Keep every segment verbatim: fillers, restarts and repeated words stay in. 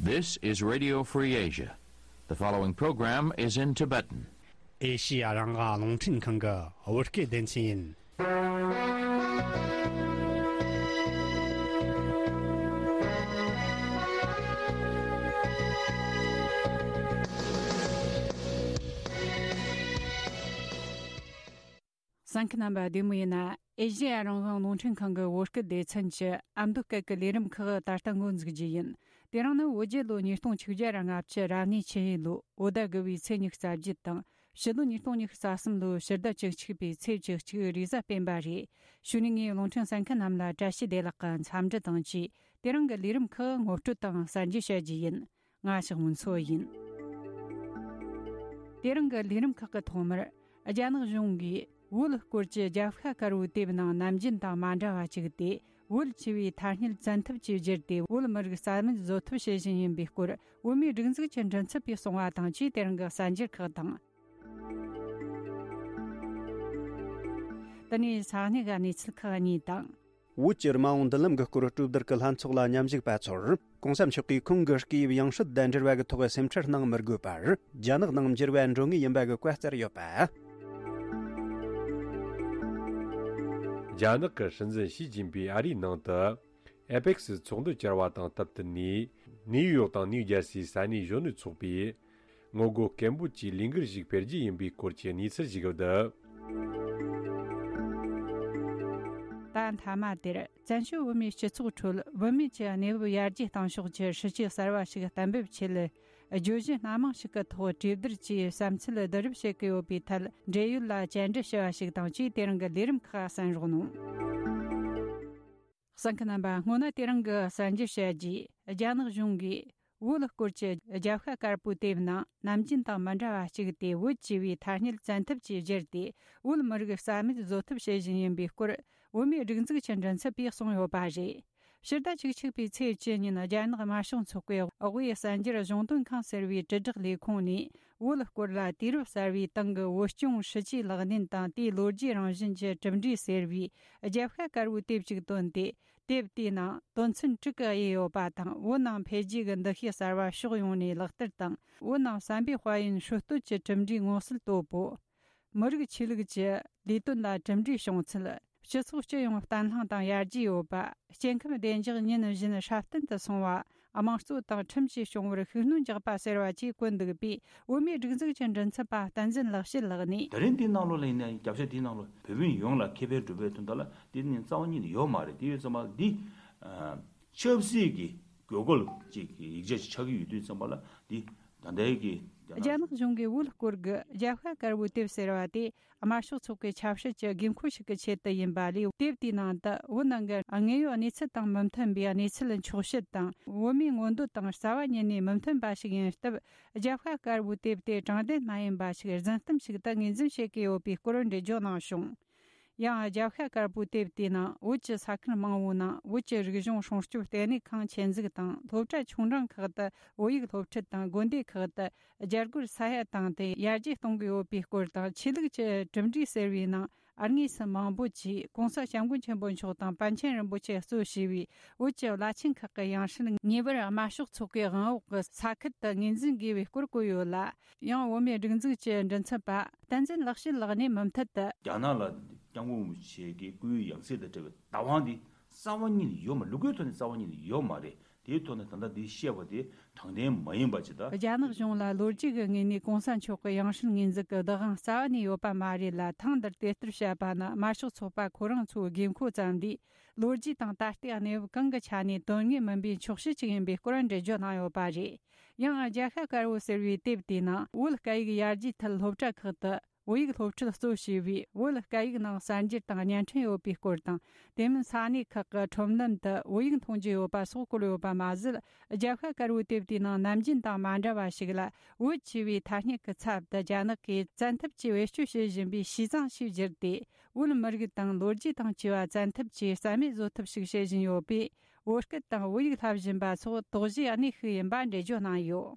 This is Radio Free Asia. The following program is in Tibetan. ཨེ་ཤི་ཡ་རང་དབང་རླུང་འཕྲིན་ཁང་གི་བོད་སྐད་སྡེ་ཚན་ཡིན། གསན་མཁན་རྣམ་པ་བདེ་མོ་ཡིན་ན། ཨེ་ཤི་ཡ་རང་དབང་རླུང་འཕྲིན་ཁང་གི་བོད་སྐད་སྡེ་ཚན་གྱི་ཨ་མདོ་སྐད་ཀྱི་ལས་རིམ་ཁག་ད་ལྟ་འགོ་འཛུགས་རྒྱུ་ཡིན། དེ་རིང་ནི་བོད་རྒྱལ་ལོ་ཉིས་སྟོང་ཆིག་བརྒྱ་ར་ལྔ་བཅུ་རབ་གནས་ཆུ་ཡོས་ལོ་བོད་ཟླ་དགུ་པའི་ཚེས་ཉི་ཤུ་རྩ་བརྒྱད་དང་། ཕྱི་ལོ་ཉིས་སྟོང་ཉི་ཤུ་རྩ་གསུམ་ལོའི་ཕྱི་ཟླ་བཅུ་གཅིག་པའི་ཚེས་བཅུ་གཅིག་རེས་གཟའ་སྤེན་པ་རེད། གཞུག་ནས་ངས་རླུང་འཕྲིན་གསན་མཁན་རྣམས་ལ་བཀྲ་ཤིས་བདེ་ལེགས་ཀྱི་འཚམས་འདྲི་དང་བཅས། དེ་རིང་གི་ལས་རིམ་ཁག་ངོ་སྤྲོད་དང་གསར་འགྱུར་བཤད་རྒྱུ་ཡིན། ང་ཞག་མུན་མཚོ་ཡིན། དེ་རིང་གི་ལས་རིམ་ཁག་གི་ཐོག་མར། རྒྱ་ནག་གཞུང་གིས་བོད་སྐོར་གྱི་རྒྱབ་ཤ་དཀར་པོའི་དེབ་ནང་ནམ་རྒྱུན་དང་མ་འདྲ་བ་བཅུག་སྟེ། བོད་ཆེ་བའི་ཐ་སྙད་བཙན་ཐབས་ཀྱིས་བསྒྱུར་ཏེ། བོད་མི་རིགས་རྩ་མེད་བཟོ་ཐབས་བྱེད་བཞིན་ཡིན་པའི་སྐོར། བོད་མིའི་སྒྲིག་འཛུགས་ཀྱི་མགྲིན་ཚབ་པས་གསུངས་པ་དང་བཅས། དེ་རིང་གི་གསར་འགྱུར་ཁག་དང་། དེ་ནས་ས་གནས་ཀྱི་གནས་ཚུལ་ཁག་གཉིས་དང་། བོད་ཀྱི་རྨ་འོང་མདུན་ལམ་གྱི་སྐོར་གྲོས་བསྡུར་གྱི་ལྷན་ཚོགས་ལ་མཉམ་ཞུགས་པ་ཚོར། གོང་ས་མཆོག་གིས་ཁོང་གི་སྐུའི་ཡང་སྲིད་དང་འབྲེལ་བ་གི་ཐོག་སེམས་ཁྲལ་གནང་མི་དགོས་པར། རྒྱ་ནག་ནང་འགྱུར་བ་འགྲོ་ངེས་ཡིན་པ་གི་བཀའ་སྩལ་ཡོད་པ། རྒྱ་ནག་གི་སྲིད་འཛིན་ཞི་ཅིན་ཕིང་ཨ་རིའི་ནང་དུ། ཨེ་པེག་སི་ཚོགས་འདུ་བཅར་བ་དང་སྟབས་བསྟུན་ནས། ནིའུ་ཡོག་དང་ནིའུ་ཇར་སིའི་ས་གནས་གཞོན་ནུ་ཚོགས་པས། ངོ་རྒོལ་སྐད་འབོད་ཀྱི་ལས་འགུལ་ཞིག་སྤེལ་རྒྱུ་ཡིན་པའི་སྐོར་གྱི་གནས་ཚུལ་ཞིག་བསྡུས། ད་མཐའ་མ་དེར། བཙན་བྱོལ་བོད་མིའི་སྤྱི་ཚོགས་ཁྲོད་བོད་མི་གྱི་གནས་བབ་ཡར་རྒྱས་གཏང་ཕྱོགས་ཀྱི་སྲིད་བྱུས་གསར་བ་ཞིག་གཏན་འབེབས་ཆེད། བརྗོད་གཞི་སྣ་མང་ཞིག་གི་ཐོག་གྲོས་བསྡུར་གྱིས་བསམ་ཚུལ་བསྡུ་རུབ་བྱེད་ཀྱི་ཡོད་པའི་ཐད། འབྲེལ་ཡོད་ལ་བཅར་འདྲི་ཞུ་བ་ཞིག་དང་བཅས། དེ་རིང་གི་ལས་རིམ་ཁག་གསན་རོགས་གནང་། གསན་མཁན་རྣམ་པ། སྔོན་ན་དེ་རིང་གི་གསར་འགྱུར་བཤད་རྒྱུས། རྒྱ་ནག་གཞུང་གིས་བོད་སྐོར་གྱི་རྒྱབ་ཤ་དཀར་པོའི་དེབ་ནང་ནམ་རྒྱུན་དང་མི་འདྲ་བ་བཅུག་སྟེ། བོད་ཅེས་པའི་ཐ་སྙད་བཙན་ཐབས་ཀྱིས་བསྒྱུར་ཏེ། བོད་མི་རིགས་རྩ་མེད་བཟོ་ཐབས་བྱེད་བཞིན་ཡིན་པའི་སྐོར། བོད་མིའི་སྒྲིག་འཛུགས་ཀྱི་མགྲིན་ཚབ་པས་གསུངས་ཡོད་པ་རེད། ཕྱི་ཟླ་བཅུ་གཅིག་པའི་ཚེས་བཅུ་ཉིན། རྒྱ་ནག་དམར་ཤོག་ཚོགས་པའི་དབུས་གསར་འགྱུར་གཞུང་དོན་ཁང་ཟེར་བའི་དྲིལ་བསྒྲགས་ལས་ཁུངས་ནས། བོད་སྐོར་ལ་དུས་རབས་གསར་བའི་སྟེང་གི་བོད་སྐྱོང་སྲིད་ཇུས་ལག་ལེན་དང་དེའི་ལོ་རྒྱུས་རང་བཞིན་གྱི་གྲུབ་འབྲས་ཟེར་བའི་རྒྱབ་ཤ་དཀར་པོའི་དེབ་ཅིག་བཏོན་ཏེ། དེབ་དེའི་ནང་དོན་ཚན་དྲུག་གི་དབྱེ་ཡོད་པ་དང་། བོད་ནང་འཕེལ་རྒྱས་ཀྱི་འདུ་ཤེས་གསར་བ་ཕྱོགས་ཡོངས་ནས་ལག་བསྟར་དང་། བོད་ནང་བསམ་པའི་དཔལ་ཡོན་སྲོལ་གཏོད་ཀྱི་གྲུབ་འབྲས་མངོན་གསལ་དོད་པོ། མི་རིགས་ཆོས་ལུགས་ཀྱི་ལས་དོན་ལ་གྲུབ་འབྲས་བྱུང་ཚུལ། སྤྱི་ཚོགས་སྤྱི་ཡོངས་བརྟན་ལྷིང་དང་ཡར་རྒྱས་ཡོད་པ། སྐྱེ་ཁམས་བདེ་འཇགས་ཉིན་བཞིན་སྲ་བརྟན་དུ་སོང་བ། དམངས་གཙོ་དང་ཁྲིམས་ཀྱིས་སྐྱོང་བར་ཤུགས་སྣོན་རྒྱག་པ་ཟེར་བ་བཅས་བཀོད་འདུག་པས། བོད་མིའི་སྒྲིག་འཛུགས་ཀྱི་མགྲིན་ཚབ་པ་བསྟན་འཛིན་ལེགས་བཤད་ལགས་ནས། ད་རིང་འདིའི་ནང་ལོགས་ལ་ཡིན་ན། རྒྱབ་ཤ་འདིའི་ནང་ལོགས་བོད་མི་ཡོངས་ལ་ཁེ་ཕན་སྒྲུབ་པའི་དོན་དག་ལ་འདི་ནི་རྩ་བ་ཉིད་ནས་ཡོད་མ་རེད། དེ་ཡོད་ཙམ་པ་འདི་ཨ་ཆབ་སྲིད་ཀྱི་དགོས་མཁོ་ཅིག་གི་ཡིག་ཆ་ཅིག་ཆགས་ཀྱི་ཡོད་དུས་ཙམ་པ་ལ། འདི་ད་ལྟའི་གི་རྒྱ་ནག་གཞུང་གིས་བོད་སྐོར་གྱི་རྒྱབ་ཤ་དཀར་པོའི་དེབ་ཟེར་བ་དེ། དམར་ཤོག་ཚོགས་པའི་ཆབ་སྲིད་ཀྱི་དགོས་མཁོ་ཞིག་གི་ཆེད་དུ་ཡིན་པ་ལས། དེབ་དེའི་ནང་དུ་བོད་ནང་གི་དངོས་ཡོད་གནས་ཚུལ་དང་མི་མཐུན་པའི་གནས་ཚུལ་འཁྱོག་བཤད་དང་། བོད་མིའི་མངོན་འདོད་དང་རྩ་བ་ཉིད་ནས་མི་མཐུན་པ་ཞིག་ཡིན་སྟབས། རྒྱབ་ཤ་དཀར་པོའི་དེབ་དེ་དྲང་བདེན་མ་ཡིན་པ་ཞིག། རྫུན་གཏམ་ཞིག་ཏུ་ངོས་འཛིན་བྱེད་ཀྱི་ཡོད་པའི་སྐོར་འགྲེལ་བརྗོད་གནང་བྱུང་། ཡང་རྒྱབ་ཤ་དཀར་པོའི་དེབ་དེའི་ནང་བོད་ཀྱི་ས་ཁུལ་མང་བོའི་ནང་བོད་ཀྱི་རིག་གཞུང་སྲུང་སྐྱོབ་ལྟེ་གནས་ཁང་ཆེད་འཛུགས་དང་། སློབ་གྲྭ་ཆུང་འབྲིང་ཁག་ཏུ་བོད་ཡིག་སློབ་ཁྲིད་དང་། དགོན་སྡེ་ཁག་ཏུ་རྒྱ་སྒོར་ས་ཡ་བཏང་སྟེ་ཡར་རྒྱས་གཏོང་གི་ཡོད་པའི་སྐོར་དང་། ཆོས་ལུགས་ཀྱི་གྲུབ་འབྲས་ཟེར་བའི་ནང་དངོས་སུ་མང་པོ་ཅིག་༸གོང་ས་༸སྐྱབས་མགོན་ཆེན་པོ་མཆོག་དང་པཎ་ཆེན་རིན་པོ་ཆེ་གཙོ་བྱས་པའི་བོད་ཀྱི་བླ་ཆེན་ཁག་གི་ཡང་སྲིད་ངེས་པར་དམར་ཤོག་ཚོགས་པའི་དབང་འོག་གི་ས་ཁུལ་དུ་ངོས་འཛིན་དགོས་པའི་སྐོར་བཀོད་ཡོད་ལ། ཡང་བོད་མིའི་སྒྲིག་འཛུགས་ཀྱི་མགྲིན་ཚབ་པ་བསྟན་འཛིན་ལེགས་བཤད་ལགས་ནས་མུ་མཐུད་དུ། རྒྱ་ནག་ལ་༸སྐྱབས་མགོན་རིན་པོ་ཆེ་གི་སྐུའི་ཡང་སྲིད་དང་འབྲེལ་བའི་བདག་དབང་འདི་རྩ་བ་ཉིད་ནས་ཡོད་མ། ལུགས་སྲོལ་ཐོག་ནས་རྩ་བ་ཉིད་ནས་ཡོད་མ་རེད། དེའི་ཐོག་ནས་ད་ལྟ་འདི་བཤད་པ་དེ་དྲང་བདེན་མ་ཡིན་པ་ཅིག་དང་། རྒྱ་ནག་གཞུང་ལ་ལོ་རྒྱུས་ཀྱི་ངོས་ནས་༸གོང་ས་མཆོག་གི་ཡང་སྲིད་ངོས་འཛིན་གྱི་བདག་དབང་རྩ་བ་ནས་ཡོད་པ་མ་རེད་ལ། ཐེངས་འདིར་དེ་ལྟར་བཤད་པ་ནི་དམར་ཤོག་ཚོགས་པ་ཁོ་རང་ཚོའི་དགོས་མཁོ་ཙམ་ལས། ལོ་རྒྱུས་དང་ད་ལྟའི་གནས་བབ་གང་གི་ཆ་ནས་དོན་དངོས་མིན་པའི་འཁྱོག་བཤད་ཅིག་ཡིན་པའི་སྐོར་འགྲེལ་བརྗོད་གནང་ཡོད་པ་རེད། ཡང་རྒྱབ་ཤ་དཀར་པོ་ཟེར་བའི་དེབ་དེའི་ནང་བོད་སྐད་ཡིག་ཡར་རྒྱས་ཐད་སློབ་གྲྭ་ཁག་ཏུ་བོད་ཡིག་སློབ་ཁྲིད་གཙོ་བྱས་པའི་བོད་སྐད་ཡིག་ནང་གསར་འགྱུར་དང་བརྙན་འཕྲིན་ཡོད་པའི་སྐོར་དང་། དེ་མིན་ས་གནས་ཁག་གི་ཁྲོམ་ལམ་དུ་བོད་ཡིག་མཐོང་རྒྱུ་ཡོད་པ་སོགས་བཀོད་ཡོད་པ་མ་ཟད། རྒྱབ་ཤ་དཀར་པོའི་དེབ་དེའི་ནང་ནམ་རྒྱུན་དང་མ་འདྲ་བ་ཞིག་ལ། བོད་ཅེས་པའི་ཐ་སྙད་ཀྱི་ཚབ་ཏུ་རྒྱ་ནག་གིས་བཙན་ཐབས་ཀྱིས་བེད་སྤྱོད་བྱེད་བཞིན་པའི་ཤིས་ཙང་ཞེས་བསྒྱུར་ཏེ། བོད་མི་རིགས་དང་ལོ་རྒྱུས་དང་བཅས་པ་བཙན་ཐབས་ཀྱིས་རྩ་མེད་བཟོ་ཐབས་ཤིག་བྱེད་བཞིན་ཡོད་པས། བོད་སྐད་དང་བོད་ཡིག་བསླབ་བཞིན་པ་སོགས་དོགས་གཞིའི་གནས་ཤིག་ཡིན་པ་འགྲེལ་བརྗོད་གནང་ཡོད།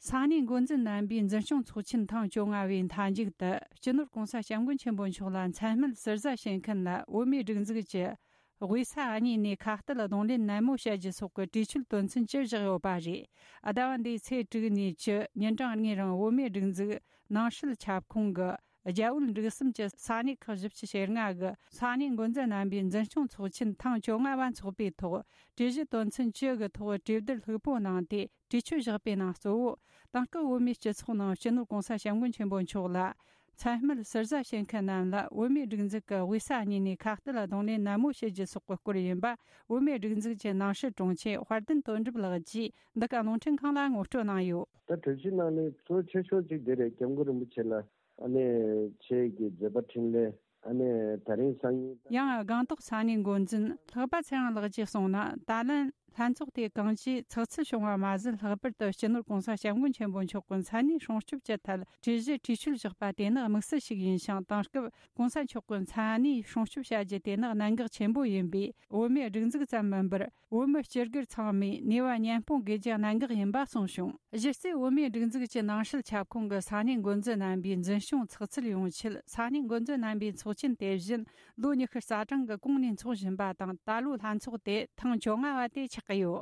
ས་གནས་འགོ་འཛིན་རྣམ་པས་འཛིན་སྐྱོང་ཚོགས་ཆེན་ཐེངས་བཅོ་ལྔ་པའི་མཐའ་མཇུག་ཏུ། སྤྱི་ནོར་༸གོང་ས་༸སྐྱབས་མགོན་ཆེན་པོ་མཆོག་ལ་མཚན་སྨད་ཟུར་ཟ་བྱེད་མཁན་ལ་བོད་མིའི་སྒྲིག་འཛུགས་ཀྱི་ དབུས་ས་གཉིས་ནས་ཁ་གཏད་གདོང་ལེན་ནན་མོ་བྱ་རྒྱུ་སོགས་ཀྱི་གྲོས་ཆོད་དོན་ཚན་བཅུ་བཞག་ཡོད་པ་རེད། ཟླ་བ་འདིའི་ཚེས་དྲུག་ནས་བཅུ་ཉིན་གྲངས་གཉིས་རིང་བོད་མིའི་སྒྲིག་འཛུགས་ནང་སྲིད་ཁྱབ་ཁོངས་ཀྱི་རྒྱ་བོད་འབྲུག་གསུམ་གྱི་ས་གནས་ཁག་བཞི་བཅུ་ཞེ་ལྔ་གི་ས་གནས་འགོ་འཛིན་རྣམ་པའི་འཛིན་སྐྱོང་ཚོགས་ཆེན་ཐེངས་བཅོ་ལྔ་བ་འཚོགས་པའི་ཐོག་གྲོས་གཞི་དོན་ཚན་བཅུ་གི་ཐོག་གྲོས་བསྡུར་ལྷུག་པོ་གནང་སྟེ། གྲོས་ཆོད་བཞག་པའི་ནང་གཙོ་བོ། དེང་སྐབས་བོད་མིའི་སྤྱི་ཚོགས་ནང་སྤྱི་ནོར་༸གོང་ས་༸སྐྱབས་མགོན་ཆེན་པོ་མཆོག་ལ་མཚན་སྨད་ཟུར་ཟ་བྱེད་མཁན་རྣམས་ལ་བོད་མིའི་སྒྲིག་འཛུགས་ཀྱི་དབུས་ས་གཉིས་ནས་ཁ་གཏད་ལ་གདོང་ལེན་ནན་མོ་བྱེད་རྒྱུ་སོགས་ཀྱི་སྐོར་ཡིན་པ། བོད་མིའི་སྒྲིག་འཛུགས་ཀྱི་ནང་སྲིད་དྲུང་ཆེ་དཔལ་ལྡན་དོན་གྲུབ་ལགས་ཀྱིས་འདི་ག་རླུང་འཕྲིན་ཁང་ལ་ངོ་སྤྲོད་གནང་ཡོད། ད་གྲོས་གཞི་ནང་ནས་གཙོ་ཆེ་ཤོས་གཅིག་དེ་རེད། སྐྱབས་མགོན་རིན་པོ་ཆེ་ལ་ཨ་ནེ་ཆེད་ཀྱི་མཛད་པ་འཕྲིན་ལས། ཨ་ནེ་ད་རིང་སང་ཉིན། ཡང་སྒང་ཏོག་ས་གནས་འགོ་འཛིན་ལྷག་པ་ཚེ་དབང་ལགས་ཀྱིས་གསུངས་ན། ད་ལན་ལྷན་ཚོགས་དེ་གང་ཅིའི་ཚགས་ཚུད་བྱུང་བ་མ་ཟད། ལྷག་པར་དུ་སྤྱི་ནོར་༸གོང་ས་༸སྐྱབས་མགོན་ཆེན་པོ་མཆོག་གི་མཚན་གནས་སྲུང་སྐྱོབ་ཀྱི་ཐད་གྲོས་གཞི་གྲོས་ཆོད་བཞག་པ་དེ་ནི་དམིགས་བསལ་ཞིག་ཡིན་ཞིང་། དེང་སྐབས་༸གོང་ས་མཆོག་གི་མཚན་གནས་སྲུང་སྐྱོབ་བྱ་རྒྱུ་དེ་ནི་གནད་འགག་ཆེན་པོ་ཡིན་པས། བོད་མིའི་སྒྲིག་འཛུགས་ཙམ་མིན་པར། བོད་མི་སྤྱི་སྒེར་ཚང་མས་ནུས་པ་མཉམ་སྤུངས་དགོས་རྒྱུ་གནད་འགག་ཡིན་པ་གསུངས་བྱུང་། གཞི་རྩའི་བོད་མིའི་སྒྲིག་འཛུགས་ཀྱི་ནང་སྲིད་ཁྱབ་ཁོངས་ཀྱི་ས་གནས་འགོ་འཛིན་རྣམ་པའི་འཛིན་སྐྱོང་ཚགས་ཚུད་ཡོང་ཆེད། ས་གནས་འགོ་འཛིན་རྣམ་པའི་ཚོགས་ཆེན་དེ་བཞིན་ལོ་ཉི་ཤུ་རྩ་གྲངས་ཀྱི་གོང་ནས་འཚོགས་བཞིན་པ་དང་། ད་ལོའི་ལྷན་ཚོགས་དེ་ཐེངས་བཅོ་ལྔ་བ་དེ་ཆགས་ཀྱི་ཡོད།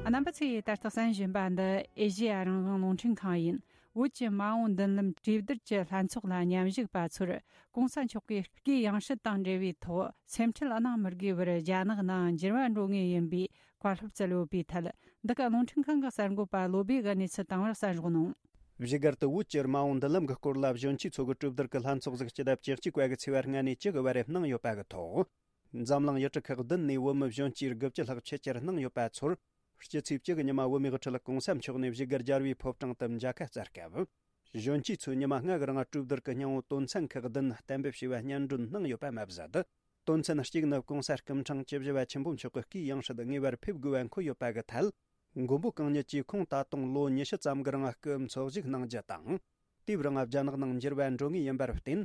རྣམ་པ་ཚོས་ད་ལྟ་གསན་བཞིན་པ་འདི་ཨེ་ཤེ་ཡ་རང་དབང་རླུང་འཕྲིན་ཁང་ཡིན། བོད་ཀྱི་མ་འོངས་མདུན་ལམ་གྲོས་བསྡུར་གྱི་ལྷན་ཚོགས་ལ་མཉམ་ཞུགས་པ་ཚོར་༸གོང་ས་མཆོག་གིས་སྐུའི་ཡང་སྲིད་དང་འབྲེལ་བའི་ཐོག་སེམས་ཁྲལ་གནང་མི་དགོས་པར་རྒྱ་ནག་ནང་འགྱུར་བ་འགྲོ་ངེས་ཡིན་པའི་བཀའ་སློབ་སྩལ་ཡོད་པའི་ཐད། འདི་ག་རླུང་འཕྲིན་ཁང་གི་གསར་འགོད་པ་བློ་བྷེ་གིས་གནས་ཚུལ་བཏང་བར་གསན་རོགས་གནང་། བཞུགས་སྒར་དུ་བོད་ཀྱི་མ་འོངས་མདུན་ལམ་གྱི་སྐོར་ལ་གཞོན་སྐྱེས་ཚོ་གི་གྲོས་བསྡུར་གྱི་ལྷན་ཚོགས་ཟིག་སྤྱི་ཟླ་བཅུ་གཅིག་པ་གི་ཚེས་པ་ལྔ་ནས་བཅུ་གི་བར་གནང་ཡོད་པ་གི་ཐོག་འཛམ་གླིང་ཡུལ་གྲུ་ཁག་བདུན་ནས་བོད་མི་གཞོན་སྐྱེས་དགུ་བཅུ་ལྷག་ཆེད་བཅར་གནང་ཡོད་པ་ཚོར། སྤྱི་ཚེས་བཅུ་གི་ཉི་མ་བོད་མིའི་དབུ་ཁྲིད་༸གོང་ས་མཆོག་ནས་བཞུགས་སྒར་རྒྱལ་བའི་ཕོ་བྲང་དུ་མཇལ་ཁ་བསྩལ་སྐབས། གཞོན་སྐྱེས་ཚོས་ཉི་མ་ལྔ་གི་རིང་གྲོས་བསྡུར་གྱི་སྙིང་བོ་དོན་ཚན་ཁག་བདུན་གཏན་འབེབས་བྱས་པ་སྙན་སྒྲོན་གནང་ཡོད་པ་མ་ཟད། དོན་ཚན་གཅིག་ནི་༸གོང་ས་སྐུ་ཕྲེང་བཅུ་བཞི་པ་ཆེན་པོ་མཆོག་གི་སྐུའི་ཡང་སྲིད་ངེས་པར་ཕེབས་དགོས་པ་འཁོད་ཡོད་པ་གི་ཐད། མགོན་པོ་གང་ཉིད་ཀྱིས་ཁོང་ད་དུང་ལོ་ཉི་ཤུ་ཙམ་གྱི་རིང་སྐུ་འཚོ་བཞུགས་གནང་རྒྱུ་དང་། དེའི་རིང་རྒྱ་ནག་ནང་འགྱུར་བ་འགྲོ་ངེས་ཡིན་པར་བརྟེན།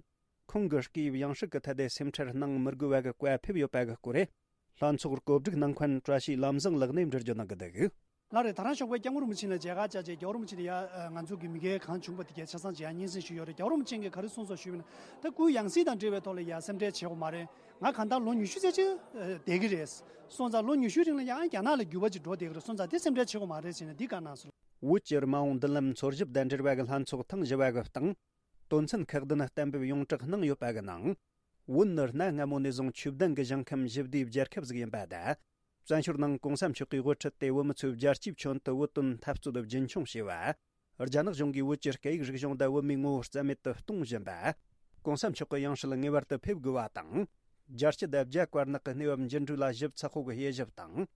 ཁོང་གི་སྐུའི་ཡང་སྲིད་ཀྱི་ཐད་དེ་སེམས་ཁྲལ་གནང་མི་དགོས་པ་གི་བཀའ་ཕེབས་ཡོད་པ་གི་སྐོར། ལྷན་ཚོགས་གོ་སྒྲིག་གནང་མཁན་བཀྲ་ཤིས་ལམ་བཟང་ལགས་ནས་འགྲེལ་བརྗོད་གནང་གི་འདུག་ལགས་རེད། ད་རང་ཞོགས་པའི་སྐྱབས་མགོན་རིན་པོ་ཆེ་ལ་མཇལ་ཁ་བཅར་རྗེས་རྒྱལ་བ་རིན་པོ་ཆེ་ནས་ཡ་ང་ཚོ་གི་མི་སྒེར་གང་བྱུང་པ་དེ་གས་ཆ་ཚང་མཇལ་ཡ་སྙན་སེང་ཞུས་ཡོད་རེད། རྒྱལ་བ་རིན་པོ་ཆེ་གིས་ག་རེ་གསུངས་སོང་ཞུས་པ་ན། ད་སྐུའི་ཡང་སྲིད་དང་འབྲེལ་བའི་ཐོག་ལ་ཡ་སེམས་ཁྲལ་བྱེད་དགོས་མ་རེད། ང་གང་ལྟར་ལོ་ཉི་ཤུ་ཙམ་ཅིག་བསྡད་ཀྱི་རེད། སོང་ཙང་ལོ་ཉི་ཤུའི་རིང་ལ་ཡང་རྒྱ་ནག་ལ་འགྱུར་བ་ཅིག་འགྲོ་བསྡད་ཀྱི་རེད། སོང་ཙང་དེ་སེམས་ཁྲལ་བྱེད་དགོས་མ་རེད་ཟེར་ནས་འདི་བཀའ་གནང་སོང་། བོད་ཀྱི་མ་འོངས་མདུན་ལམ་འཚོལ་ཞིབ་དང་འབྲེལ་བ་གི་ལྷན་ཚོགས་ཐེངས་བཞི་པ་གི་སྟེང་། དོན་ཚན་ཁག་བདུན་གཏན་འབེབས་ཡོངས་གྲགས་གནང་ཡོད་པ་གི་ནང་། བོད་ནི་གནའ་སྔ་མོ་ནས་བཟུང་ཆོས་ལྡན་གྱི་ཞིང་ཁམས་ཞི་བདེའི་རྒྱལ་ཁབ་ཟིག་ཡིན་པ་དང་། བཙན་བྱོལ་ནང་༸གོང་ས་མཆོག་གིས་དབུ་ཁྲིད་དེ་བོད་མི་ཚོས་རྒྱལ་སྤྱིའི་ཁྱོན་དུ་བོད་དོན་འཐབ་རྩོད་རྒྱུན་འཁྱོངས་བྱས་པ། རྒྱ་ནག་གཞུང་གིས་བོད་ཀྱི་སྐད་ཡིག་རིག་གཞུང་དང་བོད་མིའི་ངོ་བོ་རྩ་མེད་དུ་གཏོང་བཞིན་པ།༸གོང་ས་མཆོག་གི་ཡང་སྲིད་ངེས་པར་དུ་ཕེབས་དགོས་པ་དང་། རྒྱལ་སྤྱི་དང་རྒྱ་དཀར་ནག་གི་གནས་བབ་འགྱུར་འགྲོས་ལ་ཞིབ་ཚགས་པོ་གི་དབྱེ་ཞིབ་དང་།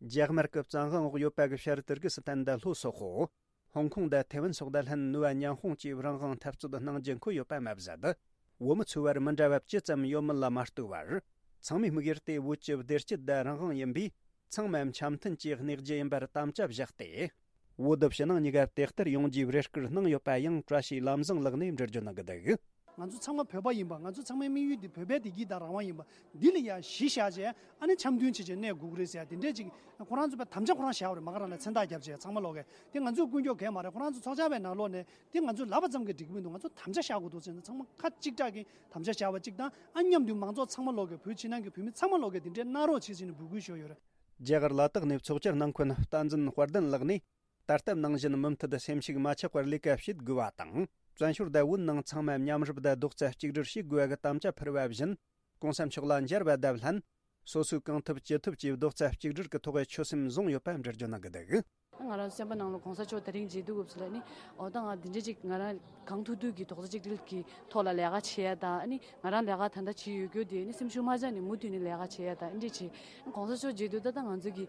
རྒྱ་དམར་གྱི་བཙན་དབང་འོག་ཡོད་པ་གི་ཤར་ཏུར་ཀི་སི་ཐན་དང་ལྷོ་སོག་པོ། ཧོང་ཀོང་དང་ཐེ་ཝན་སོགས་དང་ལྷན་ནུས་པ་མཉམ་སྤུངས་ཀྱིས་རང་དབང་འཐབ་རྩོད་གནང་རྒྱུ་འཁོད་ཡོད་པ་མ་ཟད། བོད་མི་ཚོའི་བར་མི་འདྲ་བ་ཅི་ཙམ་ཡོད་མེད་ལ་མ་ལྟོས་པར། ཚང་མས་དམིགས་ཡུལ་དེ་བོད་ཀྱི་བདེ་སྐྱིད་དང་རང་དབང་ཡིན་པས། ཚང་མ་འཆམ་མཐུན་གྱིས་གནས་རྒྱུ་ཡིན་པར་དམ་བཅའ་བཞག་སྟེ། བོད་དུ་ཕྱི་ནང་གཉིས་ཀ་དེ་ལྟར་ཡོང་རྒྱུའི་རེ་སྐུལ་གནང་ཡོད་པ་ཡང་བཀྲ་ཤིས་ལམ་བཟང་ལགས་ནས་འགྲེལ་བརྗོད་གནང་གི་འདུག་ང་ཚོ་ཚང་མ་བོད་པ་ཡིན་པ། ང་ཚོ་ཚང་མའི་དམིགས་ཡུལ་འདི་བོད་པའི་བདེ་སྐྱིད་དང་རང་དབང་ཡིན་པ། འདི་ལ་ཡ་གཞི་བཞག་བྱས་ཨ་ནི་འཆམ་མཐུན་བྱེད་བྱས་གནས་དགོས་ཀྱི་རེད་ཟེར་ཡ་དེ་འདྲས་ཅིག་ཁོ་རང་ཚོ་པའི་དམ་བཅའ་ཁོ་རང་བཞག་པ་རེད། མ་ག་རང་ལ་མཚན་རྟགས་བརྒྱབ་བྱས་ཚང་མ་ལོག་གི་དེ་ང་ཚོས་ཀུན་སྐྱོབ་གས་མ་རེད། ཁོ་རང་ཚོ་ཚོགས་བཅར་བའི་ནང་ལོགས་ནས་དེ་ང་ཚོས་ལབ་པ་ཙམ་གྱིས་འགྲིག་གི་མི་འདུག་ང་ཚོ་དམ་བཅའ་བཞག་དགོས་འདུག་ཟེར་ན་ཚང་མ་ཁ་གཅིག་གྲགས་ཀྱིས་དམ་བཅའ་བཞག་པ་གཅིག་དང་། ཨ་མཉམ་དུ་མང་ཚོགས་ཚང་མ་ལོག་གི་བོད་ཕྱི་ནང་གི་བོད་མི་ཚང་མ་ལོག་གི་དེ་འདྲའི་གནང་རོགས་བྱེད་ཟེར་ནས་འབོད་སྐུལ་ཞུས་ཡོད་རེད། རྒྱ་གར་ལ་དྭགས་ནས་ཚོགས་བཅར་གནང་མཁན་བསྟན་འཛིན་དཔལ་ལྡན་ལགས་ནས། ད་ལྟ་ནང་བཞིན་མུ་མཐུད་སེམས་ཤུགས་མ་ཆག་པར་ལས་ཀ་བྱེད་དགོས་པ་དང་། བཙན་བྱོལ་དང་བོད་ནང་ཚང་མ་མཉམ་རུབ་དང་རྡོག་རྩ་གཅིག་སྒྲིལ་བྱེད་དགོས་པ་གི་དམ་བཅའ་ཕུལ་བ་བཞིན། ༸གོང་ས་མཆོག་ལ་མཇལ་བ་དང་ལྷན། སོ་སོས་གང་ཐུབ་ཅི་ཐུབ་ཀྱིས་རྡོག་རྩ་གཅིག་སྒྲིལ་གྱི་ཐོག་ཆོད་སེམས་བཟུང་ཡོད་པ་འགྲེལ་བརྗོད་གནང་གི་འདུག་ང་རང་སེམས་པ་ནང་ལ་༸གོང་ས་མཆོག་དེ་རིང་མཇལ་དུས་སྐབས་སུ་ལ་ནི། འོ་ད་ང་འདི་འདྲ་ཅིག་ང་རང་གང་ཐུབ་ཐུབ་ཀྱིས་རྡོག་རྩ་གཅིག་སྒྲིལ་གྱི་ཐོག་ལ་ལས་ཀ་བྱེད་ཡ་དང་། ཨ་ནི་ང་རང་ལས་ཀ་ད་ལྟ་བྱེད་ཡོད་རྒྱུ་དེ་ནི་སེམས་ཤུགས་མ་ཆག་ནས་མུ་མཐུད་ནས་ལས་ཀ་བྱེད་ཡ་དང་། ཨ་འདྲ་བྱེད། ༸གོང་ས་མཆོག་མཇལ་དུས་ད་ལྟ་ང་ཚོ་གི་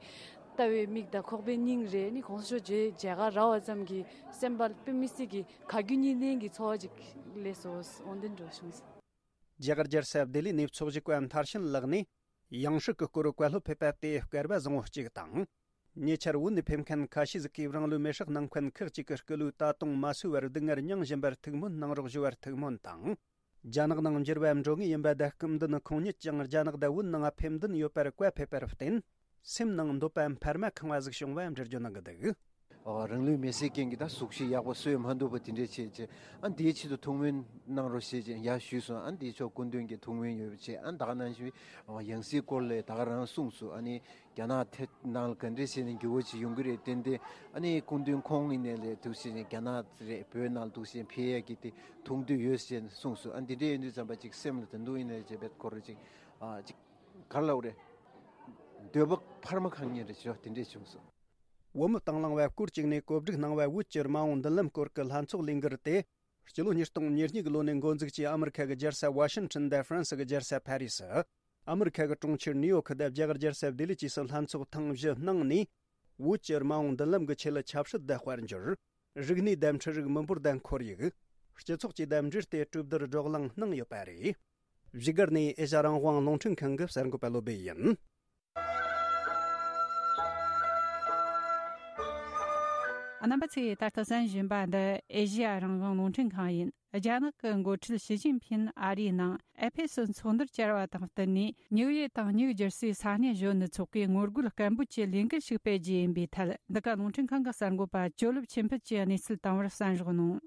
ལྟ་བའི་མིག་དང་ཁོག་པའི་སྙིང་རེད། ནི་༸གོང་ས་མཆོག་མཇལ་མཇལ་ཁ་རག་པ་ཙམ་གྱིས་སེམས་པ་དཔེ་མི་སྲིད་ཀྱི་ག་རྒྱུ་གཉིས་ལྡན་གྱི་ཚོར་བ་ཅིག་སླེབས་སོང་། འོ་འདི་འགྲོ་བྱུང་། རྒྱ་གར་རྒྱལ་ས་ལྡི་ལི་ནས་ཚོགས་ཞུགས་པ་མཐར་ཕྱིན་ལགས་ནས། ཡང་སྲིད་ཀྱི་སྐོར་བཀའ་སློབ་ཕེབས་པ་དེ་སྐལ་བ་བཟང་བོ་གཅིག་དང་། ཉེ་ཆར་བོད་ནས་ཕེབས་མཁན་ཁ་ཤས་ཟིག་གིས་རང་ལུས་མེར་སྲེག་གནང་མཁན་ཁག་ཅིག་གི་སྐུ་ལུས་ད་དུང་མ་གསོས་པར་སྡུག་བསྔལ་མྱངས་བཞིན་པར་ཐུགས་སྨོན་གནང་རོགས་ཞུ་བར་ཐུགས་སྨོན་དང་། རྒྱ་ནག་ནང་འགྱུར་བ་འགྲོ་ངེས་ཡིན་པ་དང་། སྐུ་མདུན་ཁོང་ཉིད་ཀྱང་རྒྱ་ནག་དང་བོད་ནང་ཕེབས་འདུན་ཡོད་པར་བཀའ་ཕེབས་པར་བརྟེན། སེམས་ནང་འདོད་པ་འཕར་མ་ཁེངས་པ་ཟིག་བྱུང་བ་འགྲེལ་བརྗོད་གནང་གི་འདུག་ཨ། རང་ལུས་མེར་སྲེག་མཁན་གྱི་ད་གཟུགས་གཞི་ཡག་པོ་གསོས་མ་ཐུབ་པ་དེ་འདྲས་བྱས་བྱས། ཨ། འདིའི་ཆེད་དུ་ཐུགས་སྨོན་གནང་རོགས་ཞེས་བྱས་ཡར་ཞུས་སོང་། ཨ། འདིའི་ཕྱོགས་སྐུ་མདུན་གྱི་ཐུགས་སྨོན་ཡོད་པ་བྱས། ཨ། ད་ག་ནང་བཞིན་ཡང་སྲིད་སྐོར་ལ་ད་ག་རང་གསུངས་སོང་། ཨ་ནི་རྒྱ་ནག་ཐད་ནང་ལ་ག་འདྲས་བྱས་ནས་འགྱུར་བ་ཅིག་ཡོང་གི་རེད། ཏན་ཏན་ཨ་ནི་སྐུ་མདུན་ཁོང་ཡིན་ནའི་ལས་འདུག་བྱས་ནས་རྒྱ་ནག་རེད། བོད་ནང་ལ་འདུག་བྱས་ནས་ཕེབས་ཡས་ཀྱི་དེ་ཐུགས་འདོད་ཡོད་ཟེར་ནས་གསུངས་སོང་། ཨ། འདི་འདྲས་ཡིན་དུས་ཙམ་པ་ཅིག་སེམས་ལ་ད་དུང་ཡིན་ནའི་རྗེ་བེད་ཁོ་ར་ཅིག་ཨ། ཅིག་ག་རེ་ལབ་རེད། འདོད་པ་འཕར་མ་གང་ཉིད་རེད་ཅེས་དེ་འདྲས་བྱུང་སོང་། བོད་མི་དང་བླངས་བར་སྐོར་གཅིག་ནས་གོ་སྒྲིག་གནང་བའི་བོད་ཀྱི་རྨ་འོང་མདུན་ལམ་སྐོར་གྱི་ལྷན་ཚོགས་ལས་འགུལ་དེ། སྤྱི་ལོ་ཉིས་སྟོང་ཉེར་གཉིས་ཀྱི་ལོ་ནས་འགོ་འཛུགས་ཀྱིས་ཨ་མི་རི་ཁ་གི་རྒྱལ་ས་ཝ་ཤིང་ཊོན་དང་ཧྥ་རན་སི་གི་རྒྱལ་ས་ཕ་རི་སི། ཨ་མི་རི་ཁ་གི་གྲོང་ཁྱེར་ནིའུ་ཡོག་དང་རྒྱ་གར་རྒྱལ་ས་ལྡི་ལི་བཅས་སུ་ལྷན་ཚོགས་ཐེངས་བཞི་གནང་ནས། བོད་ཀྱི་རྨ་འོང་མདུན་ལམ་གྱི་ཆེད་ལ་ཆབ་སྲིད་དང་དཔལ་འབྱོར། རིག་གནས་དང་འཕྲུལ་རིག། མི་འབོར་དང་ཁོར་ཡུག། སྤྱི་ཚོགས་བཅས་དང་འབྲེལ་ཏེ་གྲོས་བསྡུར་བགྲོ་གླེང་གནང་ཡོད་པ་རེད། བཞུགས་སྒར་ནས་ཨེ་ཤ་ཡ་རང་དབང་རླུང་འཕྲིན་ཁང་གི་གསར་འགོད་པ་བློ་སྦེ་ཡིན། རྣམ་པ་ཚོས་ད་ལྟ་གསན་བཞིན་པ་འདི་ཨེ་ཤ་ཡ་རང་དབང་རླུང་འཕྲིན་ཁང་ཡིན། རྒྱ་ནག་གི་འགོ་ཁྲིད་ཞི་ཅིན་ཕིན་ཨ་རིའི་ནང་ཨེ་ཕེ་སི་ཚོགས་འདུར་བཅར་བ་དང་བསྟུན་ནས། ཉིའུ་ཡེ་དང་ནིའུ་ཇར་སིའི་ས་གནས་གཞོན་ནུ་ཚོགས་པས་ངོ་རྒོལ་སྐད་འབོད་ཀྱི་ལས་འགུལ་ཞིག་སྤེལ་རྒྱུ་ཡིན་པའི་ཐད། འདི་ག་རླུང་འཕྲིན་ཁང་གི་གསར་འགོད་པ་ཇོ་ལེབ་ཆོས་འཕེལ་གྱིས་གནས་ཚུལ་བཏང་བར་གསན་རོགས་གནང་།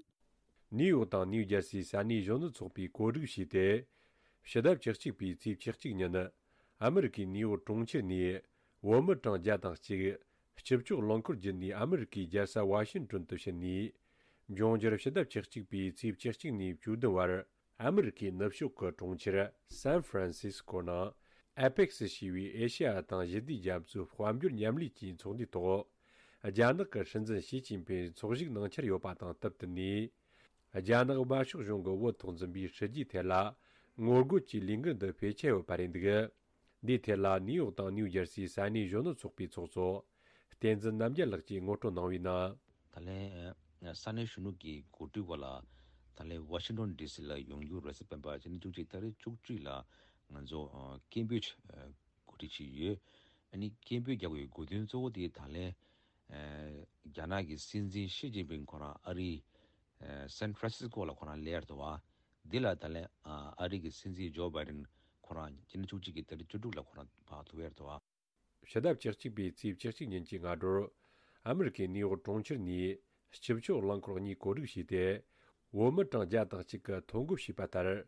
ནིའུ་ཡོག་དང་ནིའུ་ཇར་སིའི་ས་གནས་གཞོན་ནུ་ཚོགས་པས་གོ་སྒྲིག་བྱས་ཏེ། ཕྱི་ཟླ་བཅུ་གཅིག་པའི་ཚེས་བཅུ་གཅིག་ཉིན། ཨ་མི་རི་ཀའི་ནིའུ་ཡོག་གྲོང་ཁྱེར་ནས་བོད་མི་གྲངས་བརྒྱ་དང་གཅིག་སྤྱི་སྤྱོད་རླངས་འཁོར་བརྒྱུད་ནས་ཨ་མི་རི་ཀའི་རྒྱལ་ས་ཝ་ཤིང་ཊོན་དུ་ཕྱིན་ནས། འབྱུང་འགྱུར་ཕྱི་ཟླ་བཅུ་གཅིག་པའི་ཚེས་བཅུ་གཅིག་ནས་བཅུ་བདུན་བར། ཨ་མི་རི་ཀའི་ནུབ་ཕྱོགས་ཀྱི་གྲོང་ཁྱེར་སན་ཧྥ་རན་སིས་ཀོ་ནང་ཨེ་ཕེག་སི་ཞེས་པའི་ཨེ་ཤེ་ཡ་དང་ཞི་བདེའི་རྒྱ་མཚོའི་དཔལ་འབྱོར་མཉམ་ལས་ཀྱི་ཚོགས་འདུའི་ཐོག་རྒྱ་ནག་གི་སྲིད་འཛིན་ཞི་ཅིན་ཕིང་ཚོགས་ཞུགས་གནང་འཆར་ཡོད་པ་དང་སྟབས་བསྟུན་ནས། རྒྱ་ནག་དམར་ཤོག་གཞུང་གི་བོད་ཐོག་འཛིན་པའི་སྲིད་ཇུས་ཐད་ལ་ངོ་རྒོལ་གྱི་ལས་འགུལ་འདི་སྤེལ་འཆར་ཡོད་པ་རེད་འདུག། འདིའི་ཐད་ལ་ནིའུ་ཡོག་དང་ནིའུ་ཇར་སིའི་ས་གནས་གཞོན་ནུ་ཚོགས་པའི་ཚོགས་གཙོ་བསྟན་འཛིན་རྣམ་རྒྱལ་ལགས་ཀྱིས་ངོ་སྤྲོད་གནང་བའི་ནང་། ད་ལན་ས་གནས་གཞོན་ནུ་གི་གོ་སྒྲིག་འོག་ལ་ད་ལན་ཝ་ཤིང་ཊོན་ཌི་སི་ལ་ཡོང་རྒྱུ་རེད་ཟེར། སྤེན་པ་སྤྱི་ཟླ་བཅུ་གཅིག་ཏ་རིག་བཅུ་གཅིག་ལ་ང་ཚོ་སྐད་འབོད་གོ་སྒྲིག་བྱས་ཡོད། ཨ་ནི་སྐད་འབོད་རྒྱག་དགོས་དགོས་དོན་གཙོ་བོ་དེ་ད་ལན་རྒྱ་ནག་གི་སྲིད་འཛིན་ཞི་ཅིན་ཕིང་ཁོ་རང་ཨ་རིའི་སན་ཧྥ་རན་སིས་ཀོ་ལ་ཁོ་རང་སླེབས་ཡ་རེད་བ། འདི་ལ་ད་ལན་ཨ་རི་གི་སྲིད་འཛིན་ཇོ་བྷའི་ཌེན་ཁོ་རང་སྤྱི་ཟླ་བཅུ་གཅིག་གི་ཏ་རིག་བཅུ་དྲུག་ལ་ཁོ་རང་ཕར་ཐུག་ཡ་རེད་བ། ཕྱི་ཟླ་བཅུ་གཅིག་པའི་ཚེས་བཅུ་གཅིག་ཉིན་གྱི་སྔ་དྲོར། ཨ་མི་རི་ཀའི་ནིའུ་ཡོག་གྲོང་ཁྱེར་ནས་སྤྱི་སྤྱོད་རླངས་འཁོར་གཉིས་གོ་སྒྲིག་བྱས་ཏེ། བོད་མི་གྲངས་བརྒྱ་དང་གཅིག་གིས་ཐོ་འགོད་བྱས་པ་ལྟར།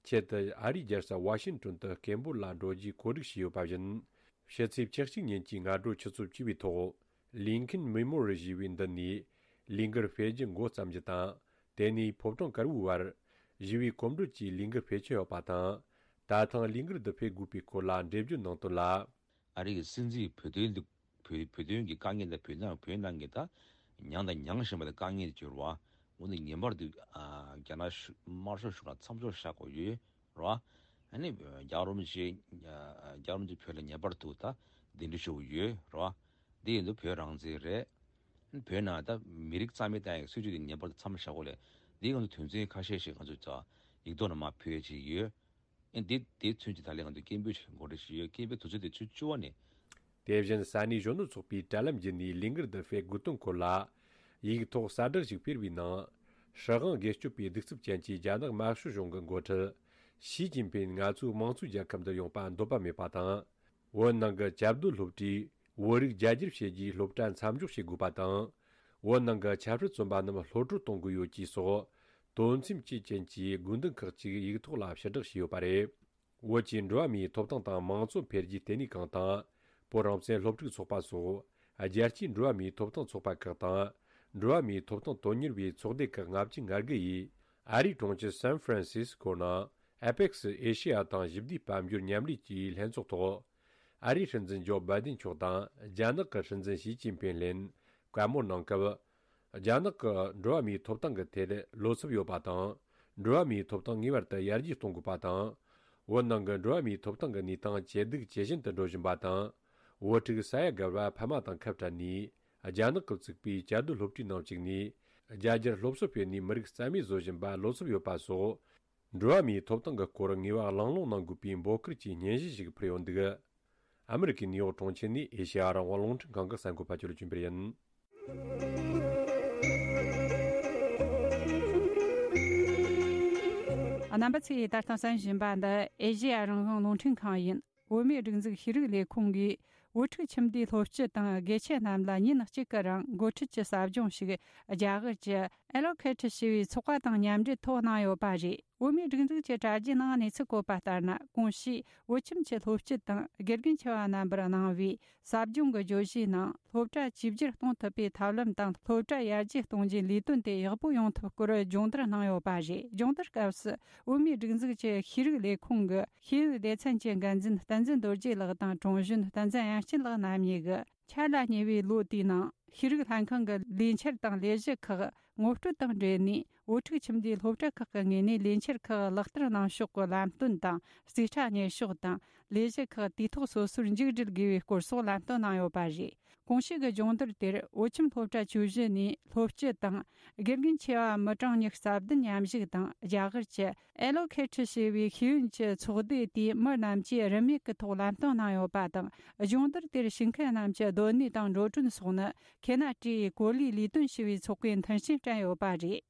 ཆེད་དུ་ཨ་རིའི་རྒྱལ་ས་ཝ་ཤིང་ཊོན་དུ་སྐད་འབོད་ལ་འགྲོ་རྒྱུའི་གོ་སྒྲིག་བྱས་ཡོད་པ་བཞིན། ཕྱི་ཚེས་བཅུ་གཅིག་ཉིན་གྱི་སྔ་དྲོ་ཆུ་ཚོད་བཅུ་པའི་ཐོག་ལིན་ཁིན་མེ་མོ་རི་ཡལ་ཞེས་པའི་མདུན་ནས་ལས་འགུལ་སྤེལ་རྒྱུ་འགོ་བརྩམས་རྒྱུ་དང་། དེ་ནས་ཕོ་བྲང་དཀར་པོའི་བར་ཞི་བའི་གོམ་བགྲོད་ཀྱི་ལས་འགུལ་སྤེལ་འཆར་ཡོད་པ་དང་། ད་ཐེངས་ལས་འགུལ་འདི་སྤེལ་དགོས་པའི་སྐོར་ལ་འགྲེལ་བརྗོད་གནང་དོན་ལ། ཨ་རི་གི་སྲིད་འཛིན་བོད་དོན་འདི་བོད་བོད་དོན་གྱི་དཀའ་ངལ་དང་། བོད་ནང་བོད་ནང་གི་ད་མྱངས་དང་མྱང་བཞིན་པ་དེ་དཀའ་ངལ་དེ་བྱུང་རེད་བ། འོ་ན་ངེས་པར་དུ་ཨ་རྒྱ་ནག་གཞུང་དམར་ཤོག་གཞུང་ལ་མཚམས་འཇོག་བཞག་དགོས་ཡོད་རེད་བ། ཨ་ནི་རྒྱལ་བ་རིན་པོ་ཆེ་རྒྱལ་བ་རིན་པོ་ཆེ་བོད་ལ་ངེས་པར་དུ་ད་གདན་འདྲེན་ཞུ་དགོས་ཡོད་རེད་བ། འདི་ཡིན་དུས་བོད་རང་བཙན་རེད། བོད་ནང་ད་མི་རིགས་རྩ་མེད་གཏོང་ཡག་གི་སྲིད་བྱུས་དེ་ངེས་པར་དུ་མཚམས་བཞག་དགོས་ལས། འདི་ང་ཚོ་དོན་ཚན་ཁ་ཤས་ཤིག་ང་ཚོས་ད་ཡིག་ཐོག་ནས་མར་ཕུལ་ཡ་ཅིག་ཡོད། ཨེ་འདི་དེ་ཚུན་གྱི་ད་ལན་ང་ཚོས་སྐད་འབོད་ཅིག་གོ་སྒྲིག་ཞུས་ཡོད། སྐད་འབོད་དུས་ཚོད་དེ་ཆུ་བཅུ་པ་ནས། དེ་བཞིན་ས་གནས་གཞོན་ནུ་ཚོགས་པའི་དྲ་ལམ་བརྒྱུད་ནས་ལས་འགུལ་འདི་སྤེལ་དགོས་དོན་སྐོར་ལ་ཡིག་ཐོག་གསལ་བསྒྲགས་ཤིག་སྤེལ་བའི་ནང་། སྲིད་དབང་སྒེར་གཅོད་པའི་གདུག་རྩུབ་ཅན་གྱི་རྒྱ་ནག་དམར་ཤོག་གཞུང་གི་འགོ་ཁྲིད་ཞི་ཅིན་ཕིང་ང་ཚོའི་དམངས་གཙོའི་རྒྱལ་ཁབ་འདིར་ཡོང་པ་འདོད་པ་མེད་པ་དང་། བོད་ནང་གི་བཅའ་སྡོད་སློབ་གྲྭས་བོད་རིགས་རྒྱ་སྒྱུར་བྱེད་རྒྱུའི་སློབ་གྲྭ་མཚམས་འཇོག་བྱེད་དགོས་པ་དང་། བོད་ནང་གི་ཆབ་སྲིད་བཙོན་པ་རྣམས་གློད་བཀྲོལ་གཏོང་དགོས་ཡོད་ཅེས་སོགས་དོན་སེམས་བཅས་ཅན་གྱི་དགོས་འདུན་ཁག་ཅིག་ཡིག་ཐོག་ལ་ཕྱིར་བསྒྲགས་བྱས་ཡོད་པ་རེད། བོད་ཀྱི་འགྲོ་བ་མིའི་ཐོབ་ཐང་དང་མང་གཙོ་འཕེལ་རྒྱས་ལྟེ་གནས་ཁང་དང་། བོད་རང་བཙན་སློབ་ཕྲུག་ཚོགས་པ་སོགས་རྒྱལ་སྤྱིའི་འགྲོ་བ་མིའི་ཐོབ་ཐང་ཚོགས་པ་ཁག་དང་། འགྲོ་བ་མིའི་ཐོབ་ཐང་དོན་གཉེར་བའི་ཚོགས་སྡེ་ཁག་ལྔ་བཅུ་ང་དགུ་ཡིས། ཨ་རིའི་གྲོང་ཁྱེར་སན་ཧྥ་རན་སིས་ཀོ་ནང་ཨེ་པེག་སི་ཨེ་ཤེ་ཡ་དང་ཞི་བདེའི་དཔལ་འབྱོར་མཉམ་ལས་ཀྱི་ལྷན་ཚོགས་ཐོག་ཨ་རིའི་སྲིད་འཛིན་ཇོ་བྷའི་ཌེན་མཆོག་དང་རྒྱ་ནག་གི་སྲིད་འཛིན་ཞི་ཅིན་ཕིང་ལྷན་བཀའ་མོལ་གནང་སྐབས། རྒྱ་ནག་གི་འགྲོ་བ་མིའི་ཐོབ་ཐང་གི་ཐད་བློ་འཚབ་ཡོད་པ་དང་། འགྲོ་བ་མིའི་ཐོབ་ཐང་ངེས་པར་དུ་ཡར་རྒྱས་གཏོང་དགོས་པ་དང་། བོད་ནང་གི་འགྲོ་བ་མིའི་ཐོབ་ཐང་གི་གནས་སྟངས་ཇེ་སྡུག་ཇེ་ཞན་དུ་འགྲོ་བཞིན་པ་དང་། བོད་ཕྲུག་ས་ཡ་བརྒལ་བ་ཕ་མ་དང་ཁ་བྲལ་ནས། རྒྱ་ནག་གིས་བཙུགས་པའི་བཅའ་སྡོད་སློབ་གྲྭའི་ནང་བཅུག་ནས། རྒྱ་སྒྱུར་སློབ་གསོ་སྤེལ་ནས་མི་རིགས་རྩ་མེད་བཟོ་བཞིན་པར་བློ་འཚབ་ཡོད་པ་སོགས། འགྲོ་བ་མིའི་ཐོབ་ཐང་གི་སྐོར་ངེས་པར་གླེང་སློང་གནང་དགོས་པའི་འབོད་སྐུལ་གྱི་སྙན་ཞུ་ཞིག་ཕུལ་ཡོད་འདུག། ཨ་མི་རི་ཀའི་ནིའུ་ཡོག་གྲོང་ཁྱེར་ནས་ཨེ་ཤེ་ཡ་རང་དབང་རླུང་འཕྲིན་ཁང་གི་གསར་འགོད་པ་ཅོ་ལེ་ཅུན་པེར་ཡིན། རྣམ་པ་ཚོས་ད་ལྟ་གསན་བཞིན་པ་འདི་ཨེ་ཤེ་ཡ་རང་དབང་རླུང་འཕྲིན་ཁང་ཡིན། བོད་མིའི་སྒྲིག་འཛུགས་ཤེས་རིག་ལས་ཁུངས་ཀྱིས་ བུ་ཕྲུག་ཁྱིམ་སྡེའི་སློབ་སྤྱི་དང་དགེ་ཆེ་རྣམས་ལ་ཉིན་གཅིག་གི་རིང་འགོ་ཁྲིད་ཀྱི་ཟབ་སྦྱོང་ཞིག་རྒྱ་གར་གྱི་ཨེ་ལོ་ཁེ་ཁྲི་ཞེས་པའི་ཚོགས་པ་དང་མཉམ་འབྲེལ་ཐོག་གནང་ཡོད་པ་རེད། བོད་མིའི་སྒྲིག་འཛུགས་ཀྱི་དྲ་རྒྱའི་ནང་གནས་ཚུལ་བཀོད་པ་ལྟར་ན། གོང་ཞུས་བོད་ཁྱིམ་གྱི་སློབ་སྤྱི་དང་དགེ་རྒན་ཆེ་བ་རྣམ་པར་གནང་བའི་ཟབ་སྦྱོང་གི་བརྗོད་གཞིའི་ནང་སློབ་གྲྭ་བཅོས་བསྒྱུར་གཏོང་ཐུབ་པའི་ཐབས་ལམ་དང་སློབ་གྲྭ་ཡར་རྒྱས་གཏོང་རྒྱུའི་ལས་དོན་དེ་ཡག་པོ་ཡོང་ཐབས་སྐོར་སྦྱོང་བརྡར་གནང་ཡོད་པ་རེད། སྦྱོང་བརྡར་སྐབས་སུ་བོད་མིའི་སྒྲིག་འཛུགས་ཀྱི་ཤེས་རིག་ལས་ཁུངས་ཀྱི་ཤེས་ཡོན་སྡེ་ཚན་གྱི་འགན་འཛིན་བསྟན་འཛིན་རྡོ་རྗེ་ལགས་དང་། དྲུང་གཞོན་བསྟན་འཛིན་དབྱངས་ཅན་ལགས་རྣམ་གཉིས་ཀྱིས། འཆར་ལ་ཉེ་བའི་ལོ་དེའི་ནང་ཤེས་རིག་ལྷན་ཁང་གི་ལས་འཆར་དང་ལས་གཞི་ཁག་ངོ་སྤྲོད་དང་འབྲེལ་ནས། བུ་ཕྲུག་ཁྱིམ་སྡེའི་སློབ་གྲྭ་ཁག་གི་ངོས་ནས་ལས་འཆར་ཁག་ལག་བསྟར་གནང་ཕྱོགས་ཀྱི་ལམ་སྟོན་དང་། རྩིས་ཁྲ་གཉེར་ཕྱོགས་དང་། ལས་གཞི་ཁག་དུས་ཐོག་སོ་སོར་མཇུག་སྒྲིལ་དགོས་པའི་སྐོར་སོགས་ལམ་སྟོན་གནང་ཡོད་པ་རེད། གོང་ཞུས་ཀྱི་སྦྱོང་བརྡར་དེར་བོད་ཁྱིམ་སློབ་གྲྭ་བཅུ་བཞི་ནས་སློབ་སྤྱི་དང་། དགེ་རྒན་ཆེ་བ་མི་གྲངས་ཉི་ཤུ་རྩ་བདུན་མཉམ་ཞུགས་དང་། རྒྱ་གར་གྱི་ཨེ་ལོ་ཁེ་ཁྲི་ཞེས་པའི་ཤེས་ཡོན་གྱི་ཚོགས་སྡེ་དེའི་མི་རྣམས་ཀྱིས་རིན་མེད་ཀྱི་ཐོག་ལམ་སྟོན་གནང་ཡོད་པ་དང་། སྦྱོང་བརྡར་དེར་ཞུགས་མཁན་རྣམས་ཀྱི་སྡོད་གནས་དང་འགྲོ་གྲོན་སོགས་ནི་ཁེ་ན་ཏྲིའི་གོ་ལའི་ལས་དོན་ཞེས་པའི་ཚོགས་པས་མཐུན་རྐྱེན་སྤྲད་ཡོད་པ་རེད།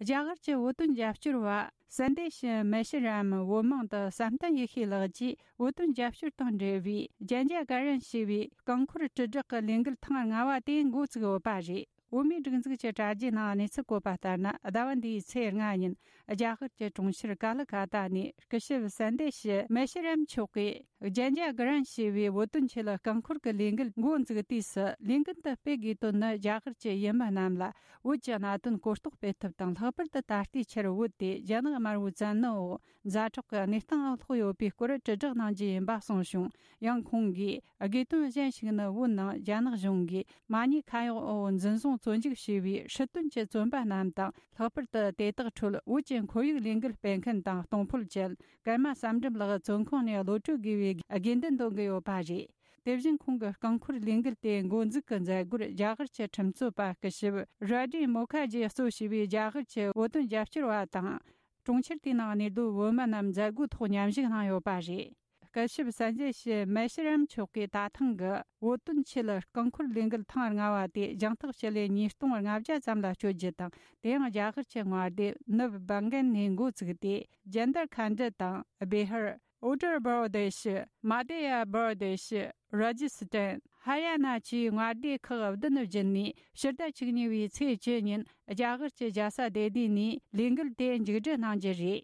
རྒྱ་གར་གྱི་བོད་དོན་རྒྱབ་སྐྱོར་བ་སན་དེ་ཤི་མེ་ཤི་རམ་བོད་མིང་དུ་བསམ་གཏན་ཡེ་ཤེས་ལགས་ཀྱིས། བོད་དོན་རྒྱབ་སྐྱོར་དང་འབྲེལ་བའི་རྒྱན་ཆ་ག་རན་ཞེས་པའི་རྐང་འཁོར་དྲིལ་བསྒྲགས་ཀྱི་ལས་འགུལ་ཐེངས་ལྔ་བ་དེ་འགོ་བཙུགས་ཡོད་པ་རེད། བོད་མིའི་སྒྲིག་འཛུགས་ཀྱི་དྲ་རྒྱའི་ནང་གནས་ཚུལ་བཀོད་པ་ལྟར་ན། ཟླ་བ་འདིའི་ཚེས་ལྔ་ཉིན་རྒྱ་གར་གྱི་གྲོང་ཁྱེར་ཀ་ལི་ཀ་ཏ་ནས་སྐུ་ཞབས་སན་དེ་ཤི་མེ་ཤི་རམ་མཆོག་གིས་རྒྱན་ཆ་ག་རན་ཞེས་པའི་བོད་དོན་ཆེད་རྐང་འཁོར་གྱི་ལས་འགུལ་འགོ་འཛུགས་དུས་སུ། ལས་འགུལ་འདི་སྤེལ་དགོས་དོན་ནི། རྒྱ་གར་གྱི་ཡུལ་མི་རྣམས་ལ་བོད་ཀྱི་གནད་དོན་གོ་རྟོགས་སྤེལ་ཐབས་དང་། ལྷག་པར་དུ་ད་ལྟའི་ཆར་བོད་དེ་རྒྱ་ནག་དམར་པོའི་བཙན་གནོན་འོག་ཛ་དྲག་གི་གནས་སྟངས་ལ་ལྷུང་ཡོད་པའི་སྐོར་དྲིལ་བསྒྲགས་གནང་རྒྱུ་ཡིན་པ་གསུངས་བྱུང་། ཡང་ཁོང་གིས། དགོས་དོན་གཞན་ཞིག་ནི། བོད་ནང་རྒྱ་ནག་གཞུང་གིས་མ་ཉེས་ཁ་གཡོག་འོག་འཛིན་བཟུང་བཙོན་འཇུག་བྱས་པའི་སྲིད་དོན་གྱི་བཙོན་པ་རྣམས་དང་། ལྷག་པར་དུ་དེ་དག་ཁྲོད་བོད་ཀྱི་ཁོར་ཡུག་ལས་འགུལ་སྤེལ་མཁན་དང་གཏོང་ཕོད་ཅན་ཀརྨ་བསམ་འགྲུབ་ལགས་བཙོན་ཁང་ནས་གློད་གྲོལ་དགོས་པའི་དགོས་འདུན་འདོན་གྱི་ཡོད་པ་རེད། དེ་བཞིན་ཁོང་གི་རྐང་འཁོར་ལས་འགུལ་དེ་འགོ་འཛུགས་ཀྱི་མཛད་སྒོར་རྒྱ་གར་གྱི་ཁྲིམས་རྩོད་པ་སྐུ་ཞབས་ར་ཌི་མོ་ཁ་ཇི་གཙོ་བྱས་པའི་རྒྱ་གར་གྱི་བོད་དོན་རྒྱབ་སྐྱོར་བ་དང་། གྲོང་ཁྱེར་དེའི་ནང་གནས་སྡོད་བོད་མི་རྣམས་མཛད་སྒོའི་ཐོག་མཉམ་ཞུགས་གནང་ཡོད་པ་རེད། སྐུ་ཞབས་སན་ཇེ་ཤི་མེ་ཤི་རམ་མཆོག་གིས་ད་ཐེངས་ཀྱི་བོད་དོན་ཆེད་རྐང་འཁོར་ལས་འགུལ་ཐེངས་ལྔ་བ་དེ་རྒྱང་ཐག་སྤྱི་ལེ་ཉིས་སྟོང་ལྔ་བརྒྱ་ཙམ་ལ་སྤྱོད་རྒྱུ་དང་། དེ་ཡང་རྒྱ་གར་གྱི་མངའ་སྡེ་ནུབ་བྷང་གན་ནས་འགོ་བཙུགས་ཏེ། ཇན་དར་ཁན་ཌི་དང་། བེ་ཧར། ཨུ་ཏར་པར་དེ་ཤི། མ་དེ་ཡ་པར་དེ་ཤི། ར་ཇི་སི་ཏན། ཧ་རི་ཡ་ན་བཅས་མངའ་སྡེ་ཁག་བདུན་བརྒྱུད་ནས་ཕྱི་ཟླ་བཅུ་གཉིས་པའི་ཚེས་བཅུ་ཉིན་རྒྱ་གར་གྱི་རྒྱལ་ས་ལྡི་ལི་ནས་ལས་འགུལ་དེ་མཇུག་སྒྲིལ་གནང་རྒྱུ་རེད།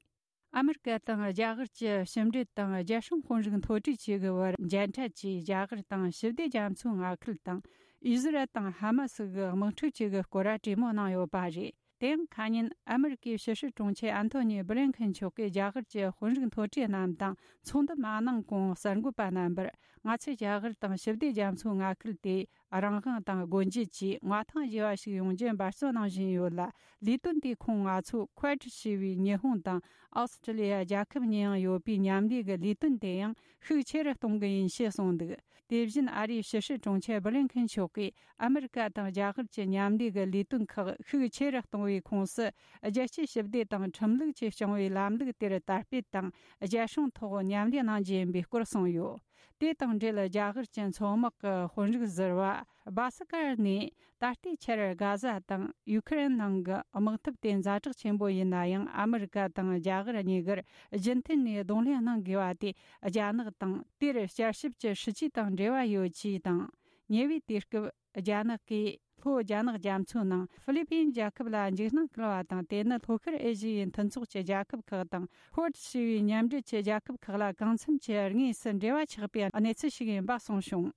ཨ་མི་རི་ཀ་དང་རྒྱ་གར་གྱི་ཕྱི་འབྲེལ་དང་རྒྱལ་སྲུང་དཔོན་རིགས་མཐོ་གྲས་བཅས་ཀྱི་བར་མཇལ་འཕྲད་ཀྱིས། རྒྱ་གར་དང་ཞི་བདེ་རྒྱ་མཚོའི་མངའ་ཁུལ་དང་། ཨི་ཟི་རལ་དང་ཧ་མ་སི་གི་དམག་འཁྲུག་བཅས་ཀྱི་སྐོར་གྲོས་མོལ་གནང་ཡོད་པ་རེད། དེ་ཡང་ཁ་ཉིན་ཨ་མི་རི་ཀའི་ཕྱི་སྲིད་དྲུང་ཆེ་ཨན་ཐོ་ནི་བྷི་ལིན་ཁིན་མཆོག་གིས་རྒྱ་གར་གྱི་དཔོན་རིགས་མཐོ་གྲས་རྣམས་དང་ཚོགས་འདུ་མ་གནང་གོང་གསར་འགོད་པ་རྣམ་པར། ང་ཚོས་རྒྱ་གར་དང་ཞི་བདེ་རྒྱ་མཚོའི་མངའ་ཁུལ་དེ་རང་དབང་དང་སྒོ་འབྱེད་ཀྱི་མངའ་ཐང་རྒྱས་པ་ཞིག་ཡོང་རྒྱུ་འབད་བརྩོན་གནང་བཞིན་ཡོད་ལ། ལས་དོན་དེས་ཁོང་ང་ཚོ་ཁུ་ཝེད་ཞེས་པའི་ཉི་ཧོང་དང་ཨོ་སི་ཀྲི་ལི་ཡ་རྒྱལ་ཁབ་གཉིས་ཡང་ཡོད་པའི་མཉམ་ལས་ཀྱི་ལས་དོན་དེ་ཡང་ཤུགས་ཆེ་རུ་གཏོང་གི་ཡིན་ཞེས་གསུངས་འདུག་དེ་བཞིན་ཨ་རིའི་ཕྱི་སྲིད་དྲུང་ཆེ་བྷི་ལིན་ཁིན་མཆོག་གིས། ཨ་མི་རི་ཀ་དང་རྒྱ་གར་གྱི་མཉམ་ལས་ཀྱི་ལས་དོན་ཁག་ཤུགས་ཆེ་རུ་གཏོང་བའི་ཁོངས་སུ། རྒྱལ་སྤྱིའི་ཞི་བདེ་དང་ཁྲིམས་ལུགས་ཀྱིས་སྐྱོང་བའི་ལམ་ལུགས་དེར་དར་སྤེལ་དང་རྒྱལ་སྲུང་ཐོག་མཉམ་ལས་གནང་རྒྱུ་ཡིན་པའི་སྐོར་གསུངས་ཡོད། དེ་དང་འབྲེལ། རྒྱ་གར་གྱི་མཚོ་དམག་གི་དཔོན་རིགས་ཟུར་པ་བྷ་སི་ཀར་ནས། ད་ལྟའི་ཆར་གྷ་ཟ་དང་ཡུ་ཁུ་རེན་ནང་གི་དམག་འཐབ་དེ་ཛ་དྲག་ཆེན་པོ་ཡིན་ན་ཡང་། ཨ་མི་རི་ཀ་དང་རྒྱ་གར་གཉིས་ཀར་རྒྱུན་མཐུད་ནས་གདོང་ལེན་གནང་དགོས་པ་དེ། རྒྱ་ནག་དང་དེར་བསྐྱར་ཞིབ་ཀྱི་སྲིད་ཇུས་དང་འབྲེལ་བ་ཡོད་ཅེས་དང་། ཉེ་བའི་དུས་སྐབས། རྒྱ་ནག་གིས་ལྷོ་རྒྱ་ནག་རྒྱ་མཚོའི་ནང་ཧྥི་ལི་པིན་རྒྱལ་ཁབ་ལ་འཇིགས་སྣང་སྐུལ་བ་དང་། དེ་ནི་ལྷོ་ཤར་ཨེ་ཤི་ཡའི་མཐུན་ཚོགས་ཀྱི་རྒྱལ་ཁབ་ཁག་དང་། ཁུ་ཝེད་ཞེས་པའི་མཉམ་འབྲེལ་གྱི་རྒྱལ་ཁབ་ཁག་ལ་གང་འཚམ་གྱི་དངོས་སུ་འབྲེལ་བ་ཆགས་པའི་གནས་ཚུལ་ཞིག་ཡིན་པ་གསུངས་བྱུང་།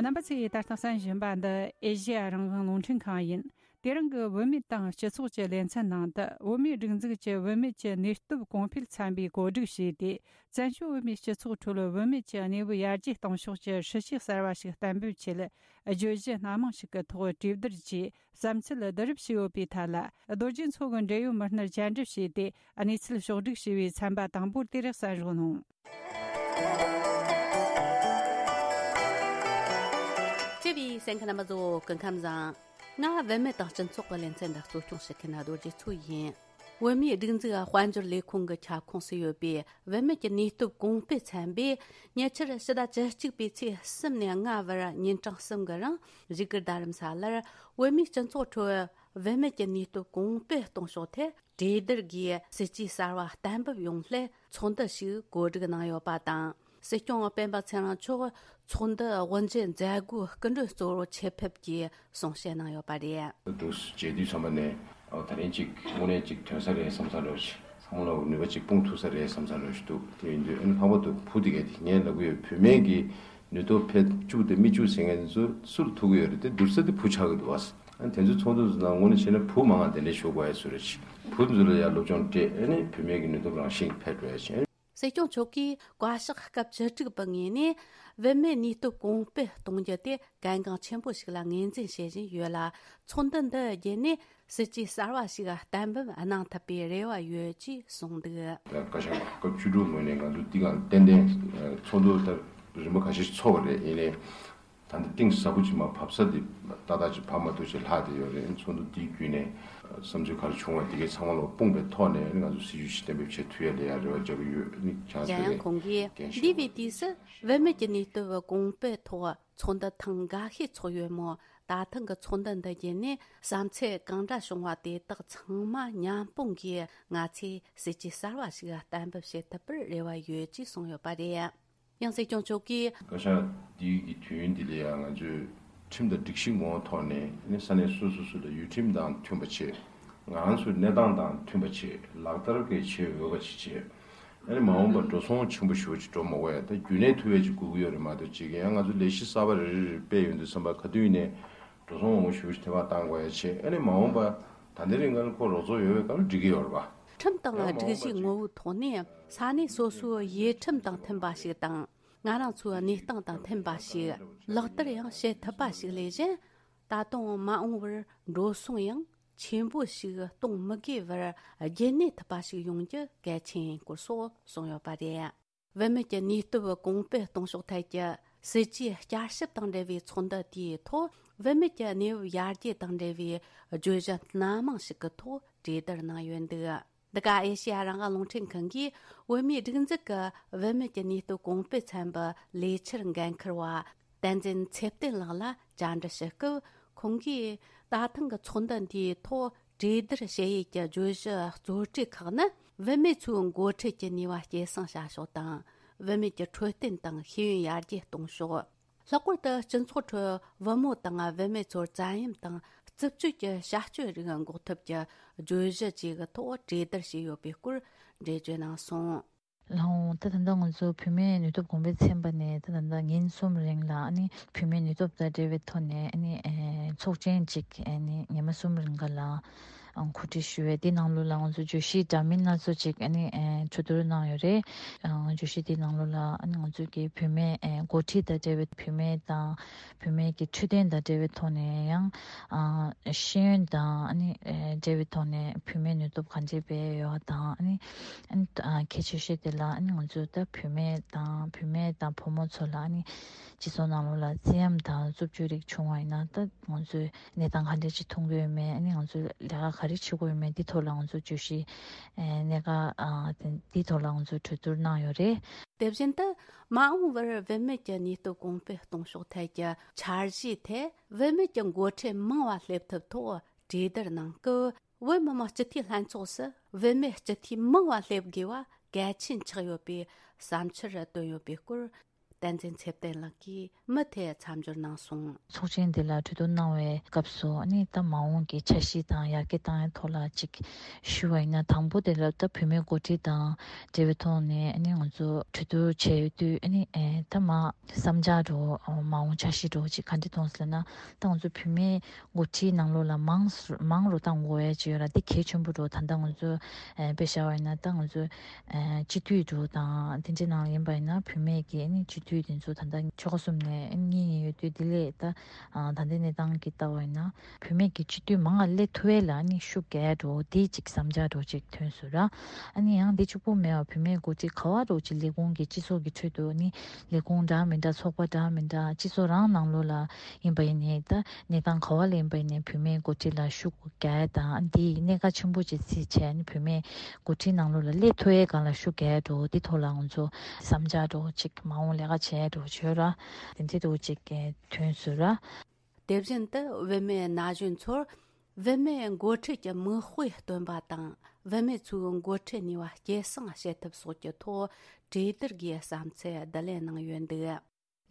རྣམ་པ་ཚོས་ད་ལྟ་གསན་བཞིན་པ་འདི་ཨེ་ཤེ་ཡ་རང་དབང་རླུང་འཕྲིན་ཁང་ཡིན། དེ་རིང་གི་བུད་མེད་དང་སྤྱི་ཚོགས་ཀྱི་ལེ་ཚན་ནང་དུ། བོད་མིའི་སྒྲིག་འཛུགས་ཀྱི་བུད་མེད་ཀྱི་ནུས་སྟོབས་གོང་འཕེལ་ཚན་པས་གོ་སྒྲིག་བྱས་ཏེ། བཙན་བྱོལ་བོད་མིའི་སྤྱི་ཚོགས་ཁྲོད་བུད་མེད་ཀྱི་གནས་བབ་ཡར་རྒྱས་གཏོང་ཕྱོགས་ཀྱི་སྲིད་བྱུས་གསར་བ་ཞིག་གཏན་འབེབས་ཆེད། བརྗོད་གཞི་སྣ་མང་ཞིག་གི་ཐོག་གྲོས་བསྡུར་གྱིས་བསམ་ཚུལ་བསྡུ་རུབ་བྱས་ཡོད་པའི་ཐད་ལ། རྡོ་རྗེ་མཚོ་གི་འབྲེལ་ཡོད་མི་སྣར་བཅར་འདྲི་བྱས་ཏེ། གནས་ཚུལ་ཕྱོགས་བསྒྲིགས་བྱས་པའི་ཚན་པ་དང་པོ་དེ་རེད། གསན་རོགས་གནང་། བཅུ་བའི་གསན་མཁན་རྣམ་པ་ཚོ་སྐུ་ཁམས་བཟང་། ང་བུད་མེད་དང་སྤྱི་ཚོགས་ཀྱི་ལེ་ཚན་འདི་གཙོ་སྐྱོང་བྱེད་མཁན་རྡོ་རྗེ་མཚོ་ཡིན། བོད་མིའི་སྒྲིག་འཛུགས་དཔལ་འབྱོར་ལས་ཁུངས་ཀྱི་ཁྱབ་ཁོངས་སུ་ཡོད་པའི་བུད་མེད་ཀྱི་ནུས་སྟོབས་གོང་སྤེལ་ཚན་པས། ཉེ་ཆར་ཕྱི་ཟླ་བཅུ་གཅིག་པའི་ཚེས་གསུམ་ནས་ལྔ་བར་ཉིན་གྲངས་གསུམ་གྱི་རིང་བཞུགས་སྒར་རྡ་རམ་ས་ལར་བོད་མིའི་སྤྱི་ཚོགས་ཁྲོད་བུད་མེད་ཀྱི་ནུས་སྟོབས་གོང་སྤེལ་གཏོང་ཕྱོགས་ཐད་ གྲོས་བསྡུར་སྒོས་སྲིད་ཇུས་གསར་བ་གཏན་འབེབས་ཡོང་སླད་ཚོགས་འདུ་ཞིག་གོ་སྒྲིག་གནང་ཡོད་པ་དང་། སྲིད་སྐྱོང་སྤེན་པ་ཚེ་རིང་མཆོག་ཚོགས་འདུ་དབུ་འབྱེད་མཛད་སྒོའི་སྐུ་མགྲོན་གཙོ་བོར་ཆེད་ཕེབས་ཀྱིས་གསུང་བཤད་གནང་ཡོད་པ་རེད། འདུག་མཇལ་དུས་ཚང་མ་ནས་ཨ་ད་རིང་ཅིག་དངོས་གནས་ཅིག་ཐོན་ས་རེད་བསམ་ས་འདྲ་བོ་ཞིག་ཚང་མ་ལ་ནུས་པ་ཅིག་སྤུངས་ཐུབ་ས་རེད་བསམ་ས་འདྲ་བོ་ཞིག་འདུག་དེ་ཡིན་དུས་ཨ་ནི་ལྷག་པར་དུ་བུ་དེ་གས་དེ་ངས་ལབ་གི་ཡོད། བུད་མེད་ཀྱི་ནུས་སྟོབས་འཕེལ་བཅུག་དང་མི་བཅུག་ཟེར་མཁན་ཚོ་སུ་ལ་ཐུག་གི་ཡོད་རེད། དེ་བསྡུར་ས་དེ་བུ་ཆགས་ཀྱི་འདུག་བ། ཨ་ནི་དེ་ཚོའི་ཚོགས་འདུ་ནང་དངོས་གནས་བྱས་ན་བུ་མང་བ་དེ་འདྲ་ཞུགས་དགོས་ཡ་བཟོ་རེད། བུ་ཚོ་ལ་ཡ་སློབ་སྦྱོང་སྤྲད། ཨ་ནི་བུད་མེད་ཀྱི་ནུས་སྟོབས་རང་བཞིན་འཕེལ་འགྲོ་ཡ་བྱས། སྲིད་སྐྱོང་མཆོག་གིས་བཀའ་ཤག་སྐབས་བཅུ་དྲུག་པའི་ངོས་ནས་བུད་མེད་ནུས་སྟོབས་གོང་སྤེལ་གཏོང་རྒྱུ་དེ་གལ་འགངས་ཆེན་པོ་ཞིག་ལ་ངོས་འཛིན་བྱེད་བཞིན་ཡོད་ལ། ཚོགས་འདུ་འདི་བརྒྱུད་ནས་སྲིད་ཇུས་གསར་བ་ཞིག་གཏན་འབེབས་གནང་ཐུབ་པའི་རེ་བ་ཡོད་ཅེས་གསུངས་འདུག་བཀའ་ཤག་སྐབས་བཅུ་དྲུག་ངོས་ནས་ང་ཚོ་འདི་ག་ཏན་ཏན་ཚོགས་འདུ་ད་རིམ་པ་ཁ་ཤས་ཤིག་ཚོགས་པ་རེད། ཡིན་ནའི། ད་ལྟ་གཏིང་ཟབ་པོ་ཅིག་མར་བབས་ས་དེ་ཏག་ཏག་ཅིག་བབས་མ་ཐུབ་ཅིག་ལྷག་བསྡད་ཡོད་རེད། ཚོགས་འདུ་འདིའི་བརྒྱུད་ནས་བསམ་ཚུལ་ག་རེ་བྱུང་བ་དེ་གའི་ཚང་མ་ལ་སྤུངས་པའི་ཐོག་ནས་ང་ཚོ་སྲིད་ཇུས་ཤིག་གཏན་འབེབས་བྱེད་ཐུབ་ཡ་ལ་ཡ་རེ་བ་རྒྱག་གི་ཡོད། ནི་ཆང་གཞན་ཡང་ཁོང་གིས་འདས་པའི་དུས་སུ་བུད་མེད་ཀྱི་ནུས་སྟོབས་གོང་སྤེལ་ཐོག་ཚོགས་འདུ་ཐེངས་འགའ་ཤས་ཚོགས་ཡོད་མོད། ད་ཐེངས་ཀྱི་ཚོགས་འདུ་འདི་བརྒྱུད་ནས་བསམ་ཚུལ་གང་འདྲ་བྱུང་བ་དེ་དག་ཚང་མ་མཉམ་སྤུངས་ཀྱིས་ང་ཚོས་སྲིད་ཇུས་གསར་བ་ཞིག་གཏན་འབེབས་བྱེད་ཐུབ་པར་རེ་བ་ཡོད་ཅེས་གསུངས་ཡོད་པ་རེད། ཡང་སྲིད་སྐྱོང་མཆོག་གིས། བཀའ་ཤག་འདིའི་གི་དུས་ཡུན་འདི་ལ་ཡང་ང་ཚོས་ཁྲིམས་དང་སྒྲིག་གཞི་ངོ་བོ་ཐོག་ནས་ནི་ས་གནས་སོ་སོ་སོ་ལ་ཡུལ་ཁྲིམས་དང་མཐུན་པ་བྱེད། ང་རང་ཚོའི་གནས་སྟངས་དང་མཐུན་པ་བྱེད། ལག་བསྟར་གྱི་བྱེད་འོས་པ་ཅིག་བྱེད། ཨ་ནི་མ་འོངས་པར་འགྲོ་སོང་ཆེན་པོ་ཞེ་པོ་ཅིག་འགྲོ་མ་དགོས་ཡ། ད་རྒྱུན་གནས་ཐུབ་ཡ་ཅིག་དགོས་ཀྱི་ཡོད་རེད་མ་གཏོགས། ཅིག་ཡང་ང་ཚོ་ལས་གཞི་གསར་པ་རེ་རེ་རེ་སྤེལ་ཡོང་དུས་ཙམ་པ་ག་དུས་ཡིན་ནའི་འགྲོ་སོང་མང་པོ་ཞེ་པོ་ཅིག་ཐེ་བ་བཏང་དགོས་ཡ་བྱེད། ཨ་ནི་མ་འོངས་པ་ད་ལྟའི་རིང་ང་ལ་ཁོ་རོགས་ཚོགས་ཡོད་པའི་སྐབས་ལ་འགྲིག་གི་ཡོད་རེད་པ། ཁྲིམས་དང་སྒྲིག་གཞི་ངོ་བོའི་ཐོག་ནས་ས་གནས་སོ་སོའི་ཡུལ་ཁྲིམས་དང་མཐུན་པ་ཞིག་དང་། ང་རང་ཚོའི་གནས་སྟངས་དང་མཐུན་པ་ཞིག་ལག་བསྟར་ཡང་བྱེད་ཐུབ་པ་ཞིག་ལས་གཞན། ད་དུང་མ་འོངས་པར་འགྲོ་སོང་ཡང་ཆེན་པོ་ཞིག་གཏོང་མི་དགོས་པར་རྒྱུན་གནས་ཐུབ་པ་ཞིག་ཡོང་རྒྱུ་གལ་ཆེན་ཡིན་སྐོར་སོགས་གསུངས་ཡོད་པ་རེད། བུད་མེད་ཀྱི་ནུས་སྟོབས་གོང་སྤེལ་གཏོང་ཕྱོགས་ཐད་ཀྱི་སྲིད་ཇུས་བསྐྱར་ཞིབ་དང་འབྲེལ་བའི་ཚོགས་འདུ་དེའི་ཐོག་བུད་མེད་ཀྱི་གནས་བབ་ཡར་རྒྱས་དང་འབྲེལ་བའི་བརྗོད་གཞི་སྣ་མང་ཞིག་གི་ཐོག་གྲོས་བསྡུར་གནང་ཡོད་འདུག་འདི་ག་ཨེ་ཤེ་ཡ་རང་དབང་རླུང་འཕྲིན་ཁང་གིས་བོད་མིའི་སྒྲིག་འཛུགས་ཀྱི་བུད་མེད་ཀྱི་ནུས་སྟོབས་གོང་སྤེལ་ཚན་པའི་ལས་འཆར་འགན་འཁུར་བ་བསྟན་འཛིན་ཚེ་བརྟན་ལགས་ལ་བཅར་འདྲི་ཞུ་སྐབས། ཁོང་གིས་ད་ཐེངས་ཀྱི་ཚོགས་འདུ་འདིའི་ཐོག་གྲོས་བསྡུར་བྱེད་ཡུལ་གྱི་བརྗོད་གཞི་གཙོ་གྲས་ཁག་ནི། བུད་མེད་ཚོའི་འགོ་ཁྲིད་ཀྱི་ནུས་པ་སྐྱེད་སྲིང་བྱ་ཕྱོགས་དང་། བུད་མེད་ཀྱི་འཕྲོད་བསྟེན་དང་ཤེས་ཡོན་ཡར་རྒྱས་གཏོང་ཕྱོགས། ལྷག་པར་དུ་སྤྱི་ཚོགས་ཁྲོད་བུ་མོ་དང་བུད་མེད་ཚོར་བཙན་གཡེམ་དང་རྩུབ་སྤྱོད་ཀྱི་བྱ་སྤྱོད་རིགས་འགོག་ཐབས་ཀྱི་བརྗོད་གཞི་བཅས་ཀྱི་ཐོག་གྲོས་བསྡུར་བྱས་ཡོད་པའི་སྐོར་འགྲེལ་བརྗོད་གནང་སོང་། ལགས་འོང་། ད་ད་ལྟ་ང་ཚོ་བུད་མེད་ནུས་སྟོབས་གོང་འཕེལ་ཚན་པ་ནས་ད་ད་ལྟ་ཉིན་གསུམ་རིང་ལ་ཨ་ནི་བུད་མེད་ནུས་སྟོབས་དང་འབྲེལ་བའི་ཐོག་ནས་ཨ་ནི་ཨེ་ཚོགས་ཆེན་གཅིག་ཨ་ནི་ཉི་མ་གསུམ་རིང་ག་ལ་ཨང་གོ་སྒྲིག་ཞུས་པས། དེ་ནང་ལོགས་ལ་ང་ཚོ་བརྗོད་གཞི་འདྲ་མིན་སྣ་ཚོགས་ཅིག་ཨ་ནི་ཨེ་གྲོས་བསྡུར་གནང་ཡོད་རེད། ཨང་བརྗོད་གཞི་དེ་ནང་ལོགས་ལ་ཨ་ནི་ང་ཚོ་གི་བུད་མེད་ཨེ་འགོ་ཁྲིད་དང་འབྲེལ་བའི་བུད་མེད་དང་བུད་མེད་ཀྱི་འཕྲོད་བསྟེན་དང་འབྲེལ་བའི་ཐོག་ནས་ཡང་ཨ་ཤེས་ཡོན་དང་ཨ་ནི་ཨེ་འབྲེལ་བའི་ཐོག་ནས་བུད་མེད་ནུས་སྟོབས་ག་འདྲས་སྤེལ་ཡོད་དང་ཨ་ནི་ཨ་ནི་ཨ་གལ་ཆེ་ཤོས་དེ་ལ་ཨ་ནི་ང་ཚོ་ད་བུད་མེད་དང་བུད་མེད་དང་བུ་མོ་ཚོ་ལ་ཨ་ནི་སྤྱི་ཚོགས་ནང་ལོགས་ལ་བཙན་གཡེམ་དང་རྩུབ་སྤྱོད་རིགས་བྱུང་བ་ཡིན་ན་ད་ང་ཚོས་གནས་སྟངས་ག་འདྲ་ཅིག་མཐོང་གི་ཡོད་མེད། ཨ་ནི་ང་ཚོས་ལས་ཀ་ག་རེ་བྱེད་དགོས་ཡོད་མེད། འདི་ཐོག་ལ་ང་ཚོ་བརྗོད་གཞི་ཨེ་གནད་འགག་ཨ་དེ་འདི་ཐོག་ལ་ང་ཚོས་གྲོས་བསྡུར་གནང་ཡོད་རེད། དེ་བཞིན་དུ་མ་འོངས་པར་བུད་མེད་ཀྱི་ནུས་སྟོབས་གོང་སྤེལ་གཏོང་ཕྱོགས་ཐད་ཀྱི་འཆར་གཞིའི་ཐད་བུད་མེད་ཀྱི་འགོ་ཁྲིད་མང་བ་སླེབས་ཐབས་ཐོག་གྲོས་བསྡུར་གནང་སྐབས། བོད་མི་མང་སྤྱི་འཐུས་ལྷན་ཚོགས་སུ་བུད་མེད་སྤྱི་འཐུས་མང་བ་སླེབས་དགོས་པ་གལ་ཆེན་ཆགས་ཡོད་པའི་བསམ་འཆར་བཏོན་ཡོད་པའི་སྐོར། བསྟན་འཛིན་ཚེ་བརྟན་ལགས་ཀྱིས་མུ་མཐུད་མཚམས་སྦྱོར་གནང་སོང་། ཚོགས་ཆེན་འདི་ལ་གྲོས་བསྡུར་གནང་བའི་སྐབས་སུ་ཨ་ནི་ད་མ་འོངས་ཀྱི་འཆར་གཞི་དང་ཡར་རྒྱས་བཏང་ཡའི་ཐོག་ལ་ཅིག་ཞུ་བ་ཡིན་ན། དང་པོ་དེ་ལ་ད་བུད་མེད་འགོ་ཁྲིད་དང་འབྲེལ་བའི་ཐོག་ནས་ཨ་ནི་ང་ཚོ་གྲོས་བསྡུར་བྱས་ཡོད་དུས་ཨ་ནི་ཨེ་ད་མ་བསམ་འཆར་འདྲ་བོ་མ་འོངས་འཆར་གཞི་འདྲ་བོ་ཅིག་ག་འདྲ་མཐོང་སོང་ལབ་ན། ད་ང་ཚོ་བུད་མེད་འགོ་ཁྲིད་ནང་ལོགས་ལ་མང་སུ་མང་རུ་བཏང་དགོས་ཡ་ཅིག་ཡོད་ར། འདི་གལ་ཆེན་པོ་འདྲ་བོ། ད་ལྟ་ང་ཚོ་ཨེ་དཔེ་བཞག་པ་ཡིན་ན་ད་ང་ཚོ་ཨེ་སྤྱི་འཐུས་འདྲ་བོ་དང་དེ་འདྲའི་ནང་ལ་ཡིན་པ་ཡིན་ན་བུད་མེད་ཀྱི་ཨ་ནི་སྤྱི་འཐུས་དེ་ཚོ་ད་ལྟ་ཆོལ་ཁ་གསུམ་ནས་ཨ་ནི་གཉིས་གཉིས་ཡོད་དུས། དེ་ལས་ད་ཨ་ད་ལྟའི་གནས་སྟངས་ཀྱི་ལྟ་བ་ཡིན་ན་བུད་མེད་ཀྱི་སྤྱི་འཐུས་མང་ང་སླེབས་ཐུབ་ཡས་ལ་ཨ་ནི་ཤུགས་རྒྱག་ཡ་འདྲ་བོ་དེ་ཅིག་བསམ་འཆར་འདྲ་བོ་ཅིག་ཐོན་སོང་ར། ཨ་ནི་ཡང་འདི་གཅིག་པོ་མེད་པར་བུད་མེད་འགོ་ཁྲིད་ག་བ་འདྲ་བོ་ཅིག་ལས་ཁུངས་ཀྱི་སྤྱི་ཚོགས་ཀྱི་ཁྲོད་དུ་ཨ་ནི་ལས་ཁུངས་འདྲ་མི་འདྲ་ཚོགས་པ་འདྲ་མི་འདྲ་སྤྱི་ཚོགས་རང་ནང་ལོགས་ལ་ཡིན་པ་ཡིན་ནའི་ད་གནས་སྟངས་ག་བ་ལ་ཡིན་པ་ཡིན་ནའི་བུད་མེད་འགོ་ཁྲིད་ལ་ཤུགས་རྒྱག་ཡ་དང་། འདི་གནད་འགག་ཆེན་པོ་ཅིག་བརྩིས་བྱས་ནས་བུད་མེད་འགོ་ཁྲིད་ནང་ལོགས་ལ་སླེབས་ཐུབ་ཡའི་སྒང་ལ་ཤུགས་རྒྱག་ཡ་འདྲ་བོ་འདི་ཐོག་ལ་ང་ཚོ་བསམ་འཆར་འདྲ་བོ་ཅིག་མ་འོངས་ལས་ཀ་བྱས་འདྲ་བོ་བྱོས་ར། དེ་འདྲའི་འདྲ་བོ་ཅིག་ཐོན་སོང་ར། དེ་བཞིན་དུ་བུད་མེད་ན་གཞོན་ཚོར་བུད་མེད་འགོ་ཁྲིད་ཀྱི་མིག་དཔེ་སྟོན་པ་དང་ བུད་མེད་ཚོའི་འགོ་ཁྲིད་ནུས་པ་སྐྱེད་སྲིང་བྱེད་ཐབས་སོགས་ཀྱི་ཐོག་གྲོས་བསྡུར་གྱིས་བསམ་ཚུལ་བསྡུ་ལེན་གནང་ཡོད་འདུག།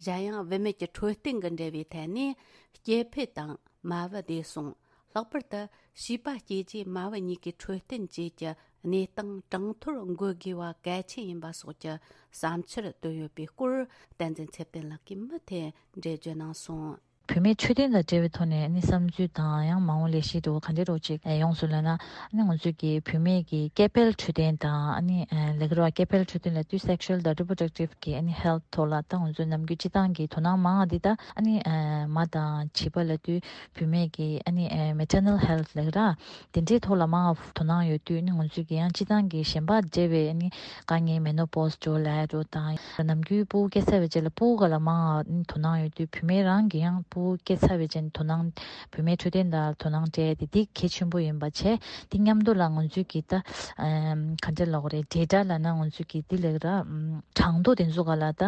གཞན་ཡང་བུད་མེད་ཀྱི་འཕྲོད་བསྟེན་གྱི་འབྲེལ་བའི་ཐད་ནས་སྐྱེ་འཕེལ་དང་མ་བུ་བདེ་སྲུང་། ལྷག་པར་དུ་བྱིས་པ་སྐྱེ་རྗེས་མ་བུ་གཉིས་ཀྱི་འཕྲོད་བསྟེན་བཅས་ཀྱི་གནས་སྟངས་གྲངས་ཐོར་འགོད་དགོས་པ་གལ་ཆེན་ཡིན་པ་སོགས་ཀྱི་བསམ་འཆར་བཏོན་ཡོད་པའི་སྐོར། བསྟན་འཛིན་ཚེ་བརྟན་ལགས་ཀྱིས་མུ་མཐུད་འགྲེལ་བརྗོད་གནང་སོང་། བུད་མེད་འཕྲོད་བསྟེན་དང་འབྲེལ་བའི་ཐོག་ནས་ནི་བསམ་ཚུལ་དང་ཡང་མ་འོངས་ལས་གཞི་འདྲ་བོ་ག་འདྲ་འདྲ་བོ་ཅིག་ཡོངས་སུ་ལབ་ན། ནི་ང་ཚོས་ཀྱི་བུད་མེད་ཀྱི་སྐྱེ་འཕེལ་འཕྲོད་བསྟེན་དང་ནི་ལས་ཀ་ར་སྐྱེ་འཕེལ་འཕྲོད་བསྟེན་ལབ་དུས་sexual དང་reproductive གི་ནི་health ཐོག་ལ་ད་ང་ཚོས་ནམ་རྒྱུན་སྤྱི་བཏང་གི་དོ་སྣང་མང་བ་འདི་ད་ནི་མ་དང་བྱིས་པ་ལབ་དུས་བུད་མེད་ཀྱི་ནི་maternal health ལབ་ཀྱི་ར། དེ་འདྲའི་ཐོག་ལ་མང་བ་དོ་སྣང་ཡོད་དུས་ནི་ང་ཚོས་ཀྱི་ཡང་སྤྱི་བཏང་གི་གཞན་པ་འབྲེལ་བའི་ནི་དཀའ་ངལ་menopause འགྲོ་ལས་འགྲོ་དང་ནམ་རྒྱུན་ཕྲུ་གུ་སྐྱེས་ཚར་བའི་རྗེས་ལ་ཕྲུ་གུ་ག་ལ་མང་བ་ནི་དོ་སྣང་ཡོད་དུས་བུད་མེད་རང་གི་ཡང་ཕྲུ་གུ་སྐྱེས་ཚར་བའི་རྗེས་ནི་དོ་སྣང་བུད་མེད་འཕྲོད་བསྟེན་དང་དོ་སྣང་སྤྲད་དེ་འདི་གལ་ཆེན་པོ་ཡིན་པ་བྱས། དེ་མཉམ་དུ་ལ་ང་ཚོས་ཀྱི་ད་ག་འདྲ་ལབ་དགོས་རེད། data ལབ་ན་ང་ཚོས་ཀྱི་འདི་ལབ་ཀྱི་ར་གྲངས་ཐོ་དེ་ཚོ་ག་ལ་ད་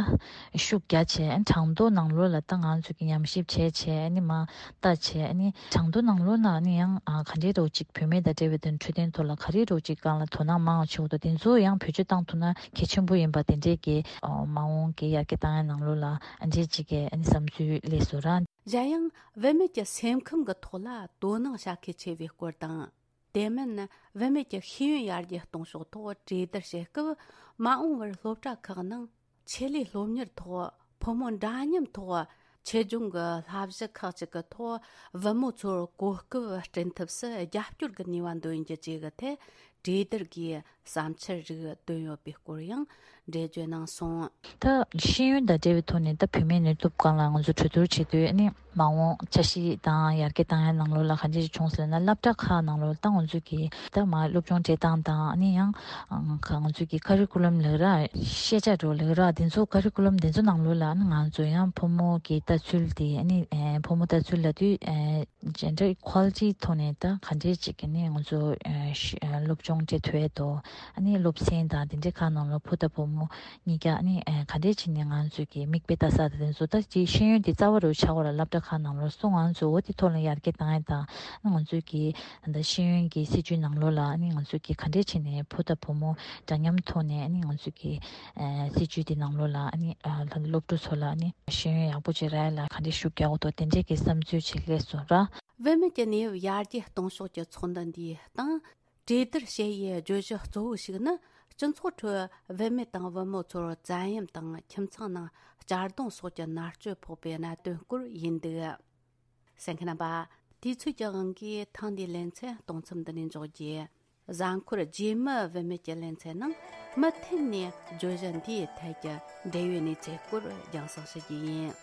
ཤུགས་རྒྱ་ཆེ་གྲངས་ཐོ་ནང་ལོགས་ལ་ད་ང་ཚོས་ཀྱི་ཉམས་ཞིབ་བྱས་བྱས་ནི་མ། ལྟ་བྱས་ནི་གྲངས་ཐོ་ནང་ལོགས་ན་ནི་ཡང་ཨ་ག་འདྲའི་རོགས་ཅིག་བུད་མེད་དང་འབྲེལ་བའི་དོན་འཕྲོད་བསྟེན་ཐོག་ལ་ག་རེ་རོགས་ཅིག་སྒང་ལ་དོ་སྣང་མང་བ་བྱེད་དགོས་འདུག་དེ་ཚོ་ཡང་བེད་སྤྱོད་བཏང་ཐུབ་ན་གལ་ཆེན་པོ་ཡིན་པ་དེ་འདྲའི་གི་ཨོ་མ་འོངས་ཀྱི་ཡར་རྒྱས་བཏང་ཡ་ནང་ལོགས་ལ་ཨ་འདྲའི་ཅིག་གི་ཨ་ནི་བསམ་ཚུལ་སླེབས་སོང་ར། གཞན་ཡང་བུད་མེད་ཀྱི་སེམས་ཁམས་ཀྱི་ཐོག་ལ་དོ་སྣང་བྱ་གལ་ཆེ་བའི་སྐོར་དང་། དེ་མིན་བུད་མེད་ཀྱི་ཤེས་ཡོན་ཡར་རྒྱས་གཏོང་ཕྱོགས་ཐོག་གྲོས་བསྡུར་བྱེད་སྐབས། མ་འོངས་པར་སློབ་གྲྭ་ཁག་ནང་ཆེད་ལས་སློབ་གཉེར་ཐོག་ཕོ་མོ་འདྲ་མཉམ་ཐོག་ཆེད་སྦྱོང་གི་བསླབ་གཞི་ཁག་ཅིག་གི་ཐོག་བུ་མོ་ཚོར་གོ་སྐབས་སྐྲུན་ཐབས་སུ་རྒྱབ་སྐྱོར་གྱི་ནུས་པ་འདོན་རྒྱུ་བཅས་ཀྱི་ཐད་གྲོས་བསྡུར་གྱིས་བསམ་འཆར་རིགས་བཏོན་ཡོད་པའི་སྐོར་ཡང་འགྲེལ་བརྗོད་གནང་སོང་། ད་ཤེས་ཡོན་དང་འབྲེལ་བའི་ཐོག་ནས་ད་བུད་མེད་ནུས་སྟོབས་སྒང་ལ་ང་ཚོ་གྲོས་བསྡུར་བྱེད་དུས་ནི། མ་འོངས་འཆར་གཞི་དང་ཡར་རྒྱས་བཏང་ཡ་ནང་ལོགས་ལ་ག་འདྲ་ཞིག་བྱུང་ཟེར་ན། སློབ་གྲྭ་ཁག་ནང་ལོགས་ད་ང་ཚོ་གི་ད་མ་སློབ་སྦྱོང་སྤྲད་སྟངས་དང་ནི་ཡང་ང་ཚོ་གི་ཀ་རི་ཀུ་ལམ་ལབ་ར་ཤེས་བྱ་འགྲོ་ལབ་ར་དེ་ཚོ་ཀ་རི་ཀུ་ལམ་དེ་ཚོ་ནང་ལོགས་ལ་ནི་ང་ཚོ་ཡང་ཕོ་མོ་གི་ལྟ་ཚུལ་དེ་ནི་ཕོ་མོ་ལྟ་ཚུལ་ལབ་དུས་gender equality ཐོག་ནས་ད་ག་འདྲ་ཅིག་གི་ནི་ང་ཚོ་སློབ་སྦྱོང་སྤྲད་ཐུབ་ཡ་དོ། ཨ་ནི་སློབ་ཚན་དང་དེ་འདྲའི་ཁག་ནང་ལོགས་ཕོ་དང་བུ་མོ་གཉིས་ཀ་ནི་ཨ་ག་འདྲས་བྱས་ནས་ང་ཚོས་ཀྱི་མིག་དཔེ་ལྟ་ས་དང་དེ་ཚོ་ད་ཅིག་ཤེས་ཡོན་དེ་རྩ་བ་རུ་ཆགས་པ་ལ་སློབ་གྲྭ་ཁག་ནང་ལོགས་སུ་ང་ཚོས་འོ་དེ་ཐོག་ལ་ཡར་རྒྱས་བཏང་ཡ་དང་ང་ཚོས་ཀྱི་ད་ཤེས་ཡོན་གྱི་སྲིད་བྱུས་ནང་ལོགས་ལ་ནི་ང་ཚོས་ཀྱི་ག་འདྲས་བྱས་ནས་ཕོ་དང་བུ་མོ་འདྲ་མཉམ་ཐོག་ནས་ནི་ང་ཚོས་ཀྱི་སྲིད་བྱུས་དེ་ནང་ལོགས་ལ་ནི་སློབ་ཕྲུག་ཚོ་ལ་ནི་ཤེས་ཡོན་ཡག་པོ་ཅིག་རག་ཡ་ལ་ག་འདྲས་ཤུགས་རྒྱག་དགོས་འདུག་དེ་འདྲས་ཀྱི་བསམ་ཚུལ་ཅིག་སླེབས་སོང་ར། བུད་མེད་ཀྱི་གནས་བབ་ཡར་རྒྱས་གཏོང་ཕྱོགས་ཀྱི་ཚོགས་འདུ་འདིའི་སྟེང་། གྲོས་བསྡུར་བྱེད་ཡུལ་བརྗོད་གཞི་གཙོ་བོ་ཞིག་ནི། སྤྱི་ཚོགས་ཁྲོད་བུད་མེད་དང་བུ་མོ་ཚོར་བཙན་གཡེམ་དང་ཁྱིམ་ཚང་ནང་གཅར་རྡུང་སོགས་ཀྱི་མནར་གཅོད་ཕོག་པའི་གནད་དོན་སྐོར་ཡིན་འདུག། གསན་མཁན་རྣམ་པ། དུས་ཚོད་ཀྱི་དབང་གིས་ཐེངས་འདིའི་ལེ་ཚན་གཏོང་མཚམས་འདི་ནས་འཇོག་རྒྱུ། གཟའ་འཁོར་རྗེས་མའི་བུད་མེད་ཀྱི་ལེ་ཚན་ནང་མུ་མཐུད་ནས་བརྗོད་གཞི་འདིའི་ཐད་ཀྱི་འབྲེལ་ཡོད་གནས་ཚུལ་སྐོར་རྒྱང་སྲིང་ཞུ་རྒྱུ་ཡིན།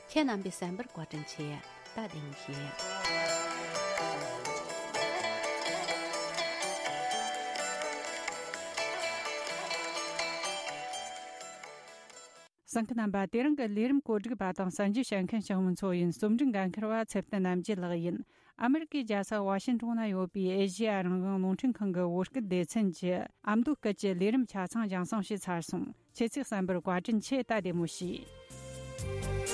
ཁྱེད་རྣམ་པས་གསན་པར་བཀའ་དྲིན་ཆེ། ད་བདེ་མོ་བྱོས། གསན་མཁན་རྣམ་པ། དེ་རིང་གི་ལས་རིམ་གོ་སྒྲིག་པ་དང་གསར་འགྱུར་བཤད་མཁན་ཞང་མུན་ཚོ་ཡིན། རྩོམ་སྒྲིག་འགན་འཁུར་བ་ཚེ་བརྟན་རྣམ་རྒྱལ་ལགས་ཡིན། ཨ་མེ་རི་ཀའི་རྒྱལ་ས་ཝ་ཤིང་ཏོན་ན་ཡོད་པའི་ཨེ་ཤེ་ཡ་རང་དབང་རླུང་འཕྲིན་ཁང་གི་བོད་སྐད་སྡེ་ཚན་གྱི་ཨ་མདོ་སྐད་ཀྱི་ལས་རིམ་ཆ་ཚང་རྒྱང་སྲིང་བྱས་ཚར་སོང་། ཁྱེད་ཚོས་གསན་པར་བཀའ་དྲིན་ཆེ། ད་བདེ་མོ་བྱོས།